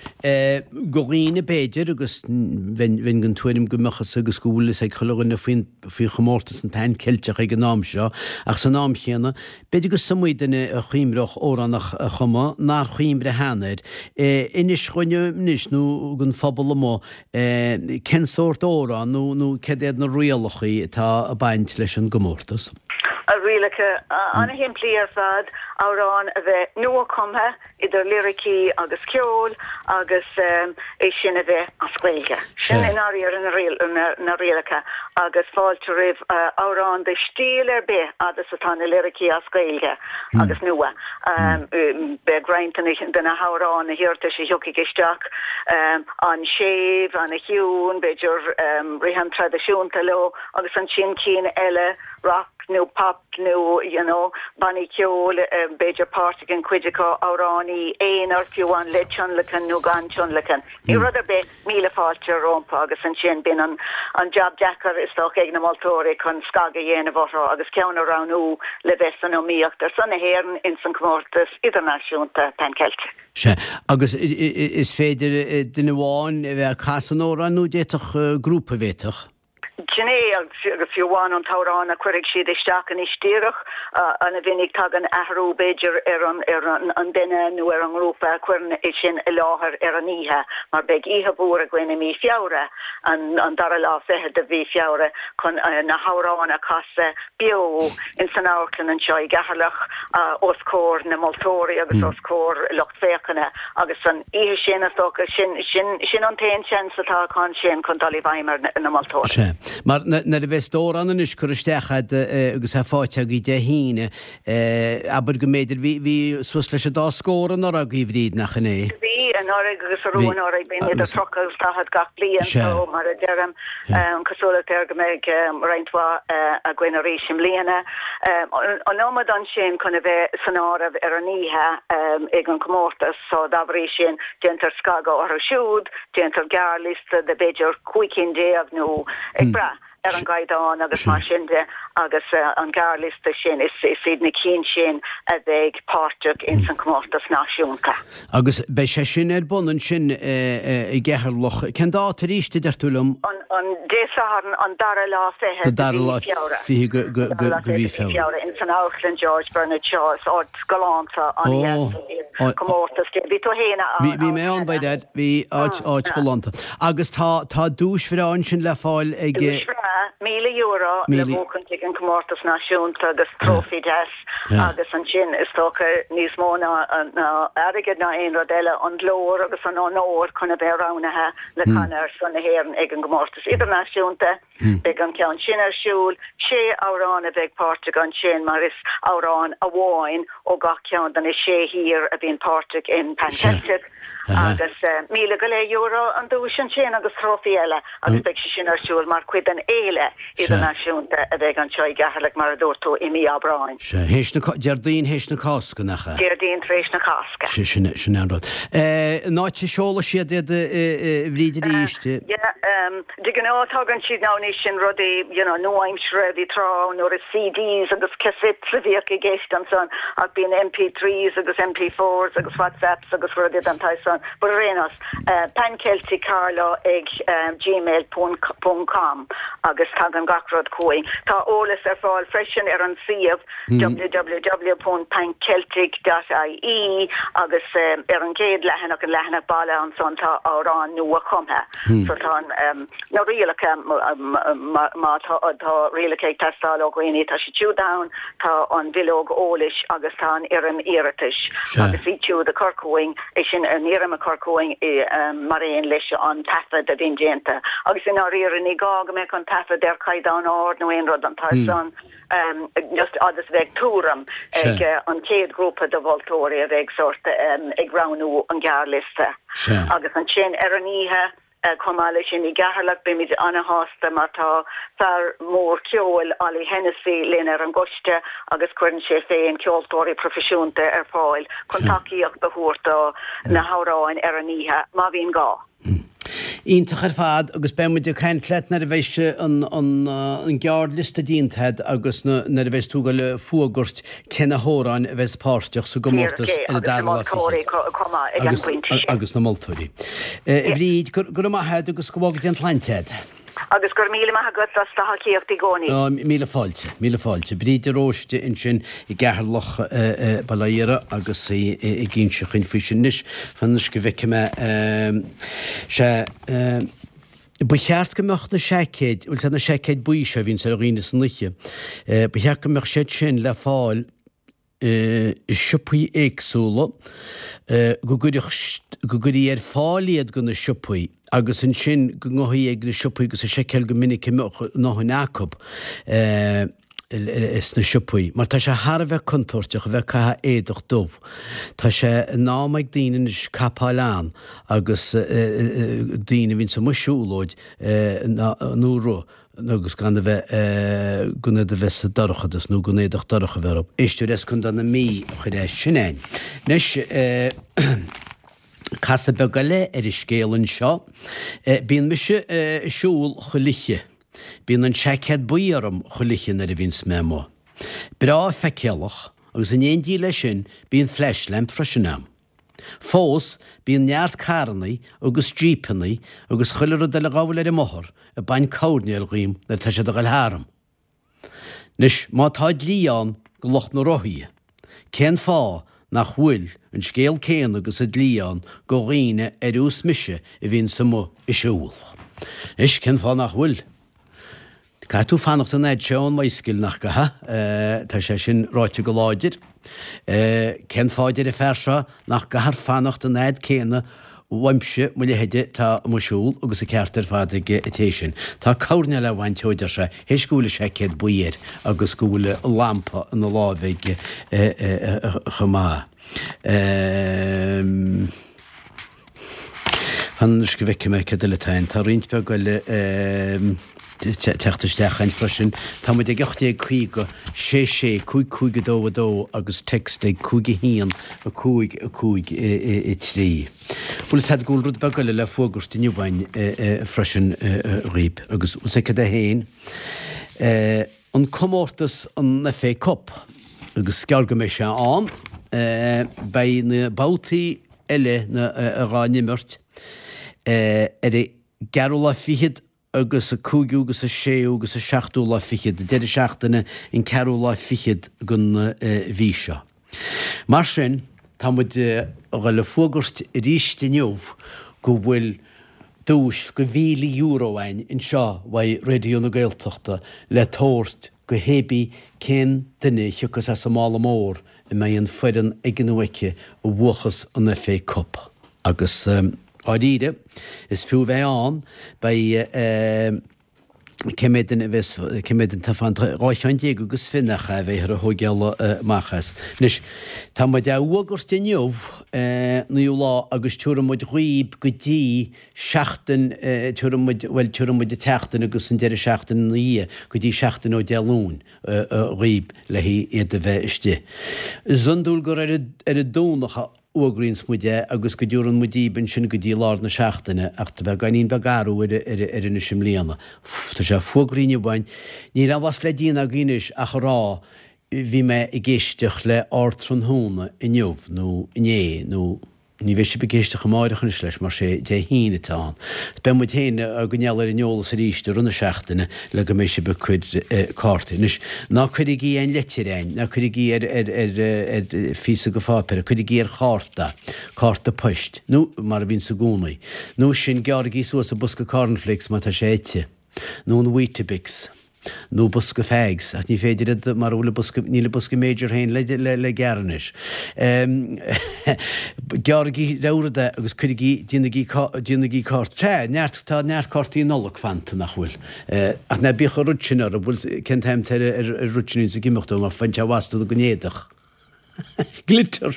do dhaoine b'fhéidir, agus bheinn den tuairim go mbeadh fhios agus go bhfuil fhios ag chuile dhuine faoin faoi chomórtas an Pan Ceilteach ag an am seo, ach san am chéanna, b'fhéidir go is iomaí duine a chuimhreodh amhrán a chumadh nár chuimhrigh cheana air. Inis dhúinn anois, nó don phobal amuigh, cén sórt amhrán nó nó céard iad na rialacha atá ag baint leis an gcomórtas? Rialacha an-shimplí ar fad, amhrán a bheith nua-chumtha, idir liricí agus ceol agus é sin a bheith as Gaeilge. Sin i ndáiríre na rialacha agus fáilte roimh amhrán de stíl ar bith fhad is atá na liricí as Gaeilge agus nua. Beidh roinnt de na hamhráin, na hiarratais a thiocfaidh isteach an-séimh, an-chiúin, b'fhéidir rithim traidisiúnta leo agus ansin cinn eile, rock nó pop nó you know bannaí ceoil, b'fhéidir páirt ag an chuid acu, amhránaí aonair fiú amháin le tionlacan nó gan tionlacan. Ní rud ar bith, míle fáilte rompu agus ansin bíonn an an jab deacair is dócha ag na moltóirí chun scagadh a dhéanamh orthu agus ceann a roghnú le bheith san iomaíocht ar son na hÉireann ins an comórtas idirnáisiúnta Pan Celtic. Sea, agus is féidir duine amháin a bheith ag casadh an amhráin nó d'fhéadfadh grúpa, bhféadfadh? Sin é, agus fiú amháin an t-amhrán a chuirfidh siad isteach anois díreach, ana-mhinic tagann athrú b'fhéidir ar an ar an duine nó ar an ngrúpa a chuireann é sin i láthair ar an oíche, mar beidh oíche mhór againn i mí Feabhra, an dara lá fichead de mhí Feabhra, chun na hamhráin a chasadh beo ins an amharclann anseo i gCeatharlach os comhair na moltóirí agus os comhair lucht féachana agus an oíche sin, is dócha, sin, sin, sin an t-aon seans atá acu ansin chun dul i bhfeidhm ar na moltóirí. Sea. Mar nuair a bheas d'amhrán anois curtha isteach agat agus é faighte agaibh Dé hAoine, abair go mb'fhéidir, bhí, bhí suas leis an dá scór anuraidh agaibh, a Bhríd, nach in é? Bhí, anuraidh agus arú anuraidh, bíonn idir 30 agus 40 gach bliain, so mar a deirim, An cosúlacht air go mbeidh roinnt mhaith againn arís i mbliana. An iomad ansin chun a bheith san áireamh ar an oíche ag an chomórtas so dá bhrí sin déantar scagadh orthu siúd, déantar gearrliosta de b'fhéidir 15 cinn nó ag brath ar an gcaighdeán agus mar sin de agus an gearrliosta sin is iad na cinn sin a bheidh páirteach ins an chomórtas náisiúnta. Agus beidh sé sin ar bun ansin i gCeatharlach. Cén dáta arís, a deir tú liom? An Dé Sathairn, an dara lá fichead de mhí Feabhra. Fiche de mhí Feabhra. Ins an Amharclann George Bernard Shaw. Is áit galánta an-dheas é. Comórtas dé. Bhí tú fhéin ann. Bhí mé ann, by dad. Bhí áit, áit ghalánta. Agus tá, tá duais bhreá ansin le fáil ag. Duais bhreá, €1,000 le buachaint ag an comórtas náisiúnta agus trófaí deas. Agus ansin, is dócha, níos mó ná airgead ná aon rud eile, an glór agus an onóir chun a bheith roghnaithe le canadh ar son na hÉireann ag an gcomórtas idirnáisiúnta. Beidh an ceann sin ar siúl. Sé amhrán a bheidh páirteach ansin mar is amhrán amháin ó gach ceann de na sé thír a bhíonn páirteach in Pan Celtic. Agus €1,000 go leith an duais ansin agus trófaí eile agus beidh sé sin ar siúl mar chuid den fhéile idirnáisiúnta a bheidh anseo i gCeatharlach mar a dúirt tú i mí Aibreáin. Sea, théis na, Déardaoin théis na Cásca, nach ea? Déardaoin tar éis na Cásca. Sea, sin, sin é an rud. An áit a seolfaidh siad iad a Bhríd arís? Yeah, De ghnáth tagann siad now anois sin rudaí you know nua-aimseartha, bhí tráth ann nuair is CDs agus cassettes a bhíodh i gceist ansan ach bíonn MP3s agus MP4s agus WhatsApps agus rudaí den tsaghas san but ar aon nós pancelticcarlow ag gmail ponc com agus tagann gach rud chugainn. Tá eolas ar fáil freisin ar an suíomh www.panceltic.ie agus ar an gcéad leathanach, an leathanach baile ansan tá amhrán nua-chumtha so tá an. Na rialacha, má tá rialacha ag teastáil ó dhaoine, tá siad siúd ann, tá an bhileog eolais agus tá an fhoirm iarratais agus iad siúd a chur chugainn, é sin an fhoirm a chur chugainn mar aon leis an taifead a bhíonn déanta. Agus i ndáiríre ní gá go mbeadh an taifead ar chaighdeán ard nó aon rud den tsaghas san, just agus bheadh tuairim ag an chéad ghrúpa de mholtóirí a bheidh sórt ag roghnú an ghearrliosta. Agus ansin ar an oíche, Chomh maith leis sin, i gCeatharlach, beimid ana-shásta mar tá fear mór ceoil, Ollie Hennessy, linn ar an gcoiste agus cuireann sé féin ceoltóirí proifisiúnta ar fáil chun tacaíocht a thabhairt do na hamhráin ar an oíche, má bhíonn gá. Iontach ar fad agus beidh muid ag caint leat nuair a bheidh an gearrliosta déanta agat agus nuair a bheidh tú ag dul a fuagairt cé na hamhráin a bheas páirteach sa gcomórtas ar an dara lá fichead. Agus na moltóirí. A Bhríd, go raibh maith agat agus go bhfága Dia an tsláinte agat. Agus go raibh míle maith agat as do thacaíocht i gcónaí. Míle fáilte, míle fáilte. Bríd de Róiste ansin i gCeatharlach, Baile Átha Iara agus í ag inse chugainn faoi sin. Anois, fan anois go bhfeicfidh mé. Sea. Ba cheart go mbeadh na seaicéid, bhfuil 's a'd na seaicéid buí seo a bhíonns ar dhaoine san oíche, ba cheart go mbeadh siad sin le fáil i siopaí éagsúla, go gcuirfeadh, go gcuirfí ar fáil iad go na siopaí agus ansin go ngabhfaí ag na siopaí agus a seiceáil go minic an mbeadh a ndóthain acu. sna siopaí, mar tá sé thar a bheith contúirteach a bheith ag caitheamh éadach dubh. Tá sé in am ag daoine anois capáil ann agus daoine a bhíonns amuigh siúlóid nó rith agus gan a bheith, gan iad a bheith sa dorchadas nó gan éadach dorcha a bheith orthu. Éisteoir as Contae na Mí a chuir é sin a'inn. Anois, casadh beag eile ar an scéal anseo. Bíonn mise ag siúl chuile oíche. Bíonn an seaicéad buí orm chuile oíche nuair a bhíonns mé amuigh. Breá feiceálach, agus in éindí leis sin bíonn flashlamp freisin a'm. Fós, bíonn neart carrannaí agus jípeannaí agus chuile rud eile a ghabháil ar an mbothar ag baint coirnéil dhíom nuair atá siad a ghoil tharam. Anois, má tá dlí ann go lucht na rothaí, cén fáth nach bhfuil an scéal céanna agus an dlí ann go dhaoine ar nós mise a bhíonns amuigh ag siúl? Anois, cén fáth nach bhfuil? Caithfidh tú fanacht an fhad seo ón mbicycle, nach gcaithfidh? Tá sé sin ráite go láidir. Cén fáth, deir an fear seo, nach gcaithfear fanacht an fhad céanna uaimse, mo leithéide, atá amuigh ag siúl, agus an ceart ar fad ag an té sin. Tá coirnéal á bhaint dhó, deir sé, théis go bhfuil an seaicéad buí air agus go bhfuil an lampa ina láimh aige chomh maith. Fan anois go bhfeicfidh mé céard eile atá ann. Tá roinnt beag eile teacht isteach againn freisin. Tá muid ag 1850 6 6 5 5 2 2 agus text ag 5 1 5 5 3. Bhfuil 'fhios a'd go bhfuil rud beag eile le fuagairt inniu againn freisin dhaoib agus bhfuil 'fhios a'd cad é féin? An comórtas an FA Cup agus is gearr go mbeidh sé ann. Beidh na babhtaí eile dhá n-imirt ar an gceathrú lá fichead agus an cúigiú agus an séú agus an seachtú lá fichead, an deireadh seachtaine an ceathrú lá fichead den mhí seo. Mar sin, tá muid a dhul a fuagairt arís inniu go bhfuil duais go €1,000 againn anseo uaidh Raidió na Gaeltachta le tabhairt go hébí cén duine a thiocfas as an mála mór a mbeidh an foireann aige nó aici a bhuachas an FA Cup. Agus dháiríre, is fiú a bheith ann, beidh cé mhéad duine a bheas, cé mhéad duine atá fanta, 12 cheann agus fiche nach ea, a bheifear a thógáil amach as. Anois, tá muid á fhuagairt inniu, naoú lá, agus tiúrfaidh muid dhaoib go dtí seachtain, tiúrfaidh muid, bhuel, tiúrfaidh muid an tseachtain agus an deireadh seachtaine ina dhiaidh, go dtí seachtain ó Dé Luain dhaoib le iad a bheith istigh. Is iondúil gur ar an Domhnach a fhuagraíonns muid é agus go dtiúrann muid díb ansin go dtí lár na seachtaine ach tá beagáinín beag athrú air anois i mbliana. Tá sé fuagraithe inniu againn. Níl aon mhaith le déanamh againn anois ach a rá bhí mé ag éisteacht le Ardtráthnóna inniu nó inné nó. Ní bheidh sibh ag éisteacht amáireach anois leis mar sé Dé hAoine atá ann. Beidh muid féin á gcoinneáil ar an eolas arís i rith na seachtaine le go mbeidh sibh ag cur cártaí. Anois, ná cuirigí aon leitir a'inn, ná cuirigí ar ar ar ar phíosa de pháipéar, cuirigí ar chárta, cárta poist, nó mar a bhíonns i gcónaí. Nó sin, gearraigí suas an bosca cornflakes má tá sé ite. nó an Weetabix, nó bosca fags, ach ní féidir iad mara bhfuil an bosca, níl an bosca Major féin le, le, le gearradh anois. Gearraigí rogha rud é agus cuirigí, déanaigí, déanaigí cárta, sea, neart, tá neart cártaí Nollag fanta, nach bhfuil? Ach ná bíodh an rud sin oraibh, bhfuil, cén t-am atá ar, ar, ar rud sin a bhíonns ag imeacht ó, mar faigheann sé amhas don éadach. Glitter!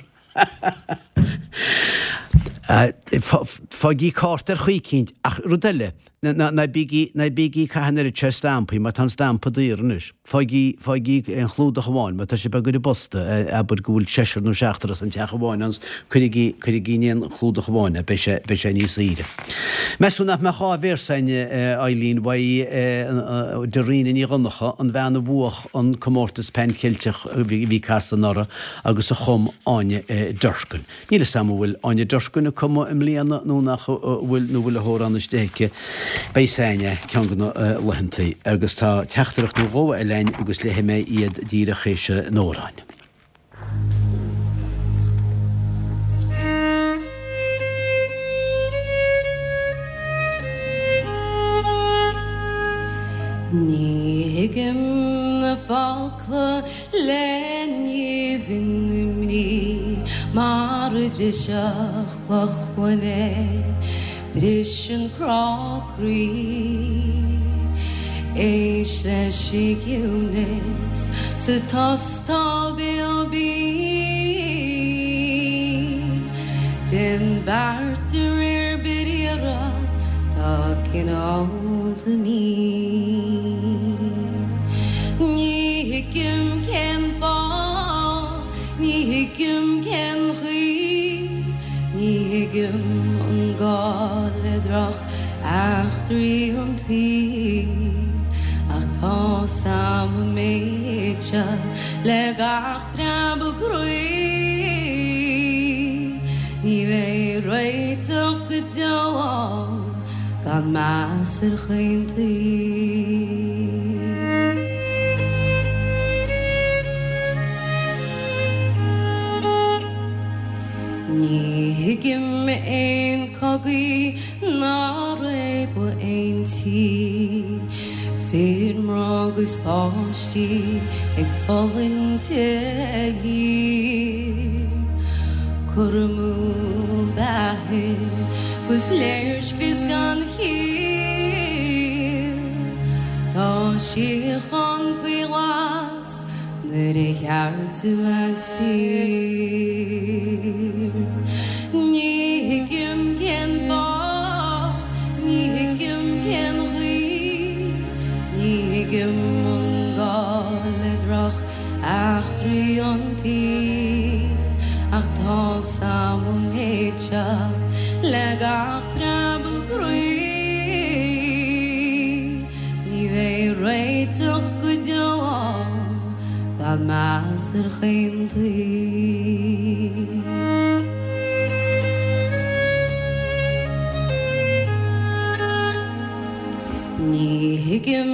Fágaigí cárta ar chaoi eicínt, ach rud eile, ná bígí, ná bígí ag caitheamh an oiread sin stampaí, mar tá an stampa daor anois. Fágaigí, fágaigí aon chlúdach amháin, má tá sibh ag cur i bposta, abair go bhfuil seisear nó seachtar as an teach amháin ann, cuirigí, cuirigí in aon chlúdach amháin é, beidh sé, beidh sé níos saoire. Meas tú nach mbeadh dhá véarsa againn, Eileen, uaidh Dairena Ní Dhonncha, an bhean a bhuach an comórtas Pan Cheilteach a bhí casadh anuraidh agus a chum Áine Durkin. Níl 'fhios a'm an bhfuil Áine Durkin ag cumadh i mbliana nó nach bhfuil nó bhfuil a hamhrán istigh aici. Beidh 'fhios a'inn é ceann de na laethantaí. Agus tá teachtaireacht nó dhó eile a'inn agus léifidh mé iad díreach théis an amhráin. Ní thuigim na focla le nimh na mbrí mar a bhrisfeadh cloch gloine Briseann crá croí. Éist leis an gciúnas sa tost tá béal binn. Déan beart de réir briathra, tá cineálta mín. Ní thuigim cén fáth. Ní thuigim cén chaoi, ní thuigim an gá le droch eachtraí an tsaoil, ach tá's a'm an méid seo le gach preabadh croí, ní bheidh réiteach go deo ann gan meas ar chaon taobh. Ní thuigim aon cogaí ná réabadh aon tí, fir, mná agus páistí ag fulaingt de shíor. Cur amú beatha 'gus léirscrios gan chiall. Tá síocháin faoi ghlas nuair ar cheart a bheith saor. Ní thuigim cén fáth, ní thuigim cén chaoi, ní thuigim an gá le droch eachtraí an tsaoil, ach tá's a'm an méid seo le gach preabadh croí, ní bheidh réiteach go deo ann gan meas ar chaon taobh. Ní thuigim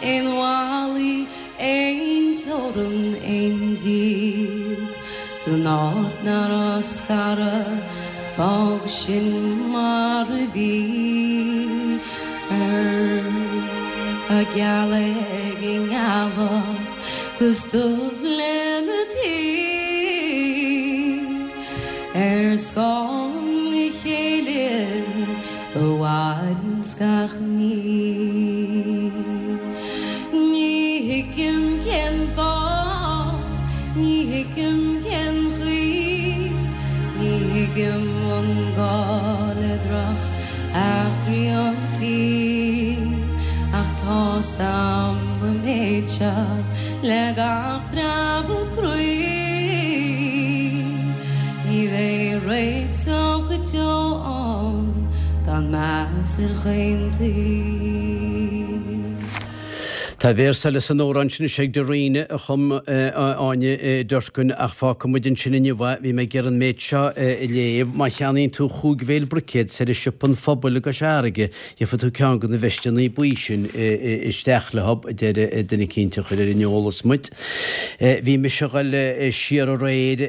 aon bhallaí Aon teorann, aon díog san áit nach raibh scaradh, fág sin mar a bhí. Tá geal ag an ngealach 'gus dubh lena taobh ar scáth a chéile. A mhaireanns gach ní. Ní thuigim cén fáth, ní thuigim cén chaoi, ní thuigim an gá le droch eachtraí an tsaoil, ach tá's a'm an méid seo le gach preabadh croí, ní bheidh réiteach go deo ann gan meas ar chaon taobh. Tá véarsa eile san amhrán sin is ag Dairena a chum Áine Durkin ach fágfaidh muid ansin inniu é. Bhí mé ag iarraidh an méid seo a léamh. Má cheannaíonn tú chúig bhéal bruicéad soir i Siopa an Phobail i gCois Fharraige, gheobhaidh tú ceann de na veisteanna buí sin isteach leo, a deir duine eicínt a chuir ar an eolas muid. Bhí mise a dhul siar aréir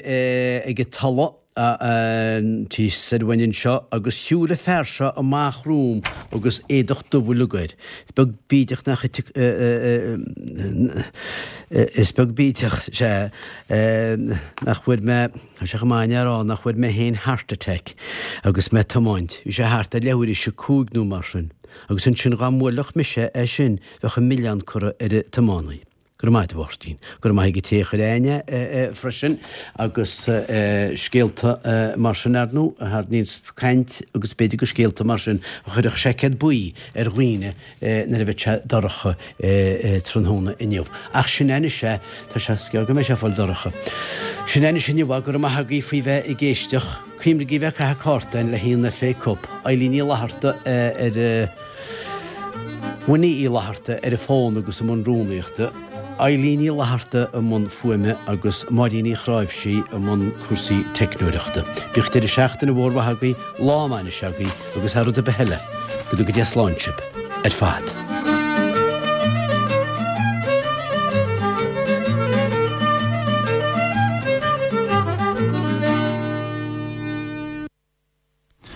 ag an Tulaigh. Thíos soir uainn anseo agus shiúil an fear seo amach romham agus éadach dubh uileag air. Is beag bídeach nach Is beag bídeach, sea, nach bhfuair mé, tá sé chomh maith a rá, nach bhfuair mé féin heart attack agus mé ag tiomáint. Bhí sé thart ar leathuair théis a cúig nó mar sin. Agus ansin dhá mbuailfeadh mise é sin bheadh an milleán curtha ar an tiománaí. Go raibh maith agat, a Mháirtín. Go raibh maith ag an té a chuir aithne air freisin agus scéalta mar sin, ar ndóigh, a tharraingíonns caint agus b'fhéidir gur scéalta mar sin a chuirfeadh seaicéad buí ar dhaoine nuair a bheidh sé dorcha tráthnóna inniu. Ach sin é anois é, tá sé, is gearr go mbeidh sé ag fáil dorcha. Sin é anois inniu é, go raibh maith agaibh faoi bheith ag éisteacht. Cuimhnigí bheith ag caitheamh cártáin le haghaidh an FA Cup. Eilín Ní Fhlatharta ar. Winnie Uí Fhlatharta ar an bhfón agus i mbun rúnaíochta, Eilín Ní Fhlatharta i mbun fuaime agus Máirín Ní Chráimhsí i mbun cúrsaí teicneoireachta. Bíodh deireadh seachtaine mhór mhaith agaibh, lá maith anois agaibh agus thar rud ar bith eile, go dtuga Dia slán sibh ar fad.